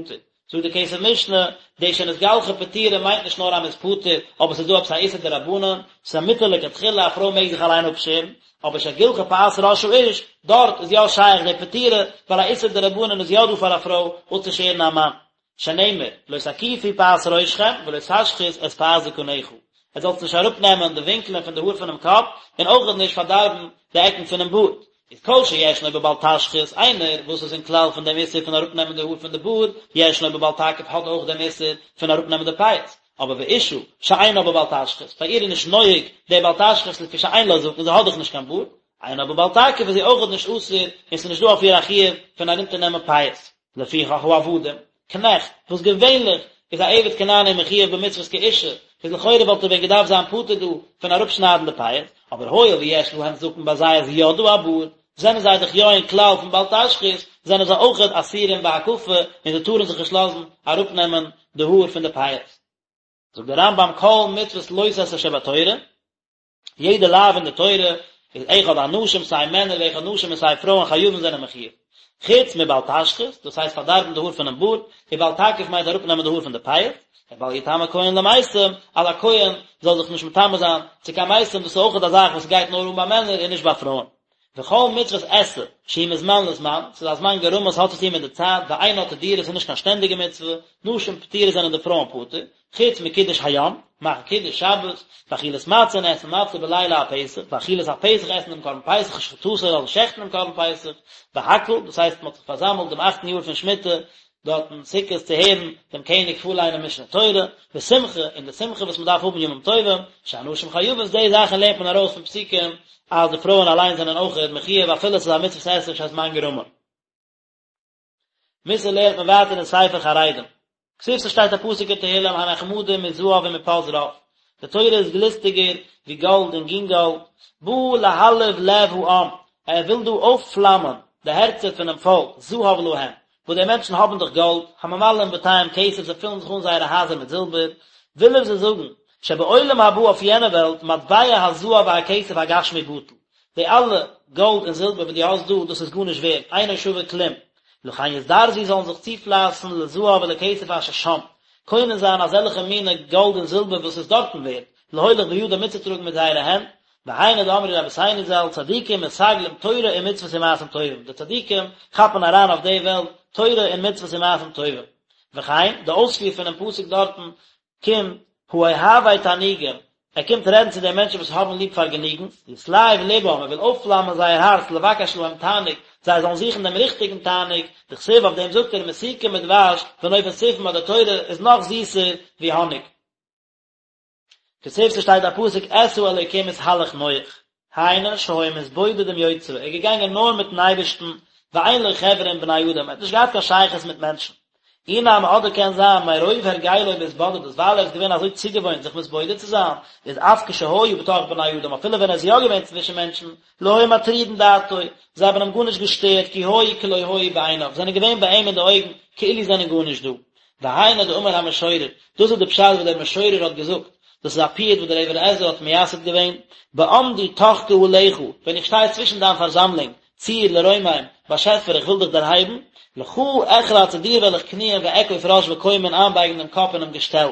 זאגט די כסף משנה, די שנתגלחה פטורה מיינט נישט נאר אז מ'איז פטור, אבער ס'איז דא עפעס א איסור דרבנן, ס'איז א מותר לכתחילה, א פרוי מעג זיך אליין אפשערן, אבער שגילחה פאת ראש האיש, דארט איז יא שייך די פטורה, ווייל א איסור דרבנן איז יא דא פאר א פרוי אפצושערן א מאן. שנאמר, לא תקיפו פאת ראשכם ולא תשחית את פאת זקנך, עטס זאלטס נישט אראפנעמען די ווינקלען פון די האר פונעם קאפ, און אויכעט נישט פארדארבן די עקן פונעם בארד. איז כל שישנו בבל תשחית, איינער וואס איז אין כלל פון דעם איסור פון אראפנעמען די האר פון די בארד, ישנו בבל תקיף האט אויך דעם איסור פון אראפנעמען די פאות, אבער ואשה שאינה בבל תשחית, ביי איר איז נישט נוהג דער בל תשחית לפי שאין לה זקן, זי האט דאך נישט קיין בארד, אינה בבל תקיף איז זי אויכעט נישט אסור און ס'איז נישט דא אויף איר א חיוב פון ארונטערנעמען פאות. לפיכך העבדים, קנעכט, וואס געווענליך איז א עבד כנעני מחויב במצוות כאישה, איז לכאורה וואלט ער ווען געדארפט זיין פטור דא פון אראפשניידן די פאות, אבער הואיל ויש להם זקן ביי זיי איז יא דא א בארד, זענען זיי דאך יא אין כלל פון בל תשחית, זענען זיי אויכעט אסורים בהקפה און זיי טארן זיך נישט לאזן אראפנעמען די האר פון די פאות. זאגט דער רמב"ם כל מצוות לא תעשה שבתורה, יעדע לאו אין די תורה איז אחד אנשים סיי מענער ואחד נשים און סיי פרויען חייבים זענען מחיוב. חוץ מבל תשחית, דאס הייסט פארדארבן די האר פונעם בארד, ובל תקיף מיינט אראפנעמען די האר פון די פאות, ובל יטמא כהן למתים, אז א כהן זאל זיך נישט מטמא זיין צו קיין מתים, דאס איז אויכעט א זאך וואס גייט נאר אן ביי מענער און נישט ביי פרויען. וכל מצוות עשה, שהיא מזמן לזמן, ס'איז א זמן גרמא, ס'האט צו טון מיט די צייט, ואינה תדירה, ס'איז נישט קיין שטענדיגע מצוה, נשים פטורות זענען די פרויען פטור, חוץ מקידוש היום, מאכן קידוש שבת, ואכילת מצה און עסן מצה בליל הפסח, ואכילת הפסח עסן דעם קרבן פסח ושחיטתו און שעכטן דעם קרבן פסח, והקהל, דאס הייסט מ'האט זיך פארזאמלט דעם אכטן יאר פון שמיטה, דארטן סוכות צו הערן דעם קעניג פארליינען משנה תורה, ושמחה, און די שמחה וואס מ'דארף האבן ימים טובים, שהנשים חייבות, די זאכן לערנט מען ארויס פון פסוקים אז די פרויען אליין זענען אויכעט מחיוב אפילו עס איז א מצוות עשה שהזמן גרמא. מוסר לערנט מען ווייטער אין ספר חרדים. כתיב ס'שטייט א פסוק אין תהילים הנחמדים מזהב ומפז רב, די תורה איז גליסטיגער ווי גאלד און גינגאלד, בא להלהיב לב העם, ער וויל דא אויפפלאמען די הערצער פונעם פאלק, זהב להם, וואס די מענטשן האבן דאך גאלד, הממלאים בתיהם כסף, זיי פילן זיך אן זייערע הייזער מיט זילבער, וויל ער זיי זאגן, שבעולם הבא אויף יענע וועלט, מטבע הזהב והכסף הגשמי בטל, די אלע גאלד און זילבער וואס דו האסט דא, דאס איז גארנישט ווערד, אינו שווה כלום, לכן יזדרזו זאלן זיך צופלייסן לזהב ולכסף אשר שם, קונה זיין אזעלכע מיני גאלד און זילבער וואס איז דארטן ווערד, להוליך בידם מיטצוטראגן מיט זייערע הענט, והיינו דאמרו רבותינו ז"ל, צדיקים מסגלים תורה ומצוות ומעשים טובים, די צדיקים כאפן אריין אויף די וועלט תורה און מצוות און מעשים טובים. וכן, די אויספיר פונעם פסוק דארטן קומט, האוהבי תענוגים, ער קומט רעדן צו די מענטשן וואס האבן ליב פארגעניגנס, יתלהב לבם, ער וויל אויפפלאמען זייער הארץ לבקש להם תענוג, זיי זאלן זוכן דעם ריכטיגן תענוג, דכתיב אויף דעם זאגט ער מתוקים מדבש ונופת צופים אז די תורה איז נאך זיסער ווי האניג. כתיב ס'שטייט א פסוק את האלוקים התהלך נח, היינו שהיה מתבודד עם יוצרו, ער איז געגאנגען נאר מיטן אייבערשטן, ואין לו חברה עם בני אדם, ער האט נישט געהאט קיין שייכות מיט מענטשן. אי נמי אדער קען זיין מרוב הרגלו בהתבודדות ווייל ער איז געווען אזוי צוגעוואוינט זיך מתבודד צו זיין, איז אף כשהיה בתוך בני אדם אפילו ווען ער איז יא געווען צווישן מענטשן, לא היו מטרידין דעתו, זיי האבן אים גארנישט געשטערט כי היו כלא היו בעיניו, זענען געווען ביי אים אין די אויגן כאילו זענען גארנישט דא. והיינו דאמר המשורר, דאס איז די פשט וואס דער משורר האט געזאגט, דאס איז א פיוט וואס דער אבן עזרא האט מייסד געווען, בעמדי תוך קהלך, ווען איך שטיי צווישן דיין פארזאמלונג, צור לרומם, באשעפער איך וויל דיך דערהייבן, לך אכרע צו דיר וועל איך קניען ואכוף ראש וקומה און איינבייגן דעם קאפ אינעם געשטעל.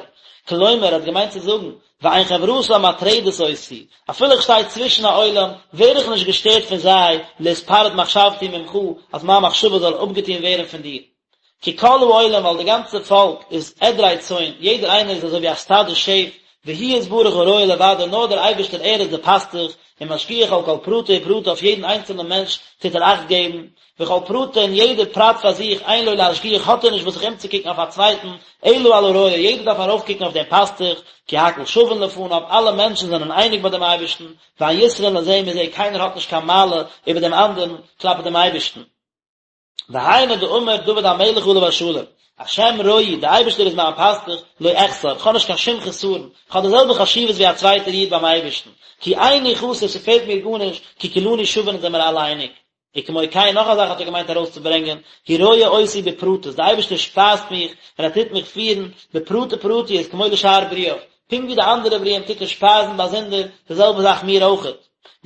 כלומר, ער האט געמיינט צו זאגן, ואין חברתם מטרדת אותי, אפילו איך שטיי צווישן א עולם, ווער איך נישט געשטערט פון זיי, להתפרד מחשבתי ממך, אז מיין מחשבה זאל אפגעטון ווערן פון דיר. כי כל העולם ווייל די גאנצע פאלק איז עדרי צאן, יעדער איינער איז אזוי ווי א סטאדע שעף, והוא יתברך הרועה לבדו נאר דער אייבערשטער ער איז דער פאסטוך, ומשגיח על כל פרטי ופרטי אויף יעדן איינצעלנעם מענטש טוט ער אכט געבן, וכל פרטא און יעדער פרט פאר זיך אין לו להשגיח האט ער נישט וואס זיך אומצוקוקן אויף א צווייטן, אלא על הרועה יעדער דארף ארויפקוקן אויף דעם פאסטוך, כי הכל שווין לפניו אלע מענטשן זענען אייניג ביי דעם אייבערשטן, ואין יתרון לזה מזה קיינער האט נישט קיין מעלה איבער דעם אנדערן כלפי דעם אייבערשטן. והיינו דאמר דוד המלך עליו השלום, השם רועי, דער אייבערשטער איז מיין פאסטוך, לא אחסר, איך האב נישט קיין שום חסרון, איך האב די זעלבע חשיבות ווי א צווייטער איד ביים אייבערשטן, כי איני חסר, ס'פעלט מיר גארנישט, כי כולנו שווין אונז זעמיר אלע אייניג. וכמו כן, נאך א זאך האט ער געמיינט ארויסצוברענגען, הוא רועה אותי בפרטות, דער אייבערשטער שפייזט מיך און ער טוט מיך פירן בפרטי פרטיות כמו לשאר ברואיו, פונקט ווי די אנדערע ברואים טוט ער שפייזן באזונדער, די זעלבע זאך מיר אויכעט.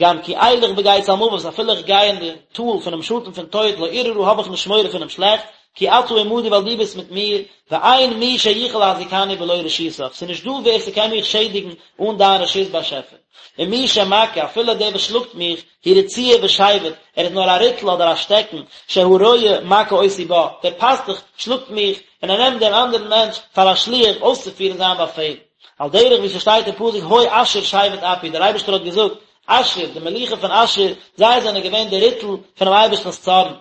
גם כי אלך בגיא צלמוות אפילו איך גיי אין די טאל פונעם שאטן פון טויט לא אירא רע האב איך נישט מורא פונעם שלעכטס, כי אתה עמדי ווייל דו ביסט מיט מיר, ואין מי שיוכל להזיקני בלא רשותך, ס'איז נישט דא ווער ס'קען מיך שעדיגן אן דיין רשות באשעפער. ומי שמכה, אפילו דער וואס שלאגט מיך, הוא רצועה ושבט, ער איז נאר א ריטל אדער א שטעקן, שהרועה מכה אותי בה, דער פאסטוך שלאגט מיך, און ער נעמט דעם אנדערן מענטש פאר א שליח אויסצופירן זיין באפעל. על דרך ווי ס'שטייט אין פסוק הוי אשור שבט אפי, דער אייבערשטער האט געזאגט, אשור, די מלוכה פון אשור, זיי זענען געווען די ריטל פונעם אייבערשטנ'ס צארן.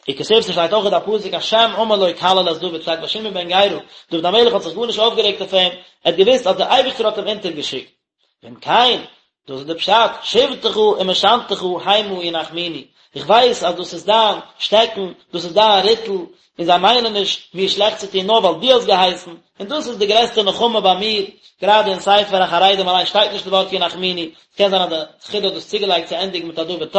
וכתיב ס'שטייט אויך א פסוק השם אמר לו קלל את דוד, שטייט ביי שמעי בן גרא, דוד המלך האט זיך גארנישט אויפגערעגט אויף אים, ער האט געוואוסט אז דער אייבערשטער האט אים אונטערגעשיקט. ואם כן, דאס איז די פשט, שבטך ומשענתך המה ינחמוני, איך ווייס אז דאס איז דיין שטעקן, דאס איז דיין ריטל, און זיי מיינען נישט מיר שלעכט צו טון נאר ווייל דו האסט געהייסן, און דאס איז די גרעסטע נחמה ביי מיר, גראדע אין ספר החרדים אליין שטייט נישט די ווארט ינחמוני, עס קען זיין אז די חידא האט דאס צוגעלייגט צו ענדיגן מיט א דוד ת'.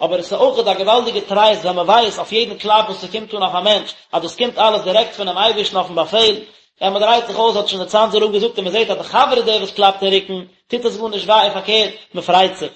אבער עס איז אויכעט א געוואלדיגע טרייסט ווען מען ווייסט אויף יעדן קלאפ וואס ס'קומט אן אויף א מענטש אז דאס קומט אלעס דירעקט פונעם אייבערשטן אויפן באפעל, ווען מען דרייט זיך אויס האט שוין דער צאנזער רב געזאגט און מען זעט אז די חבר איז דער וואס קלאפט אין רוקן, טוט עס גארנישט וויי און פארקערט, מען פרייט זיך.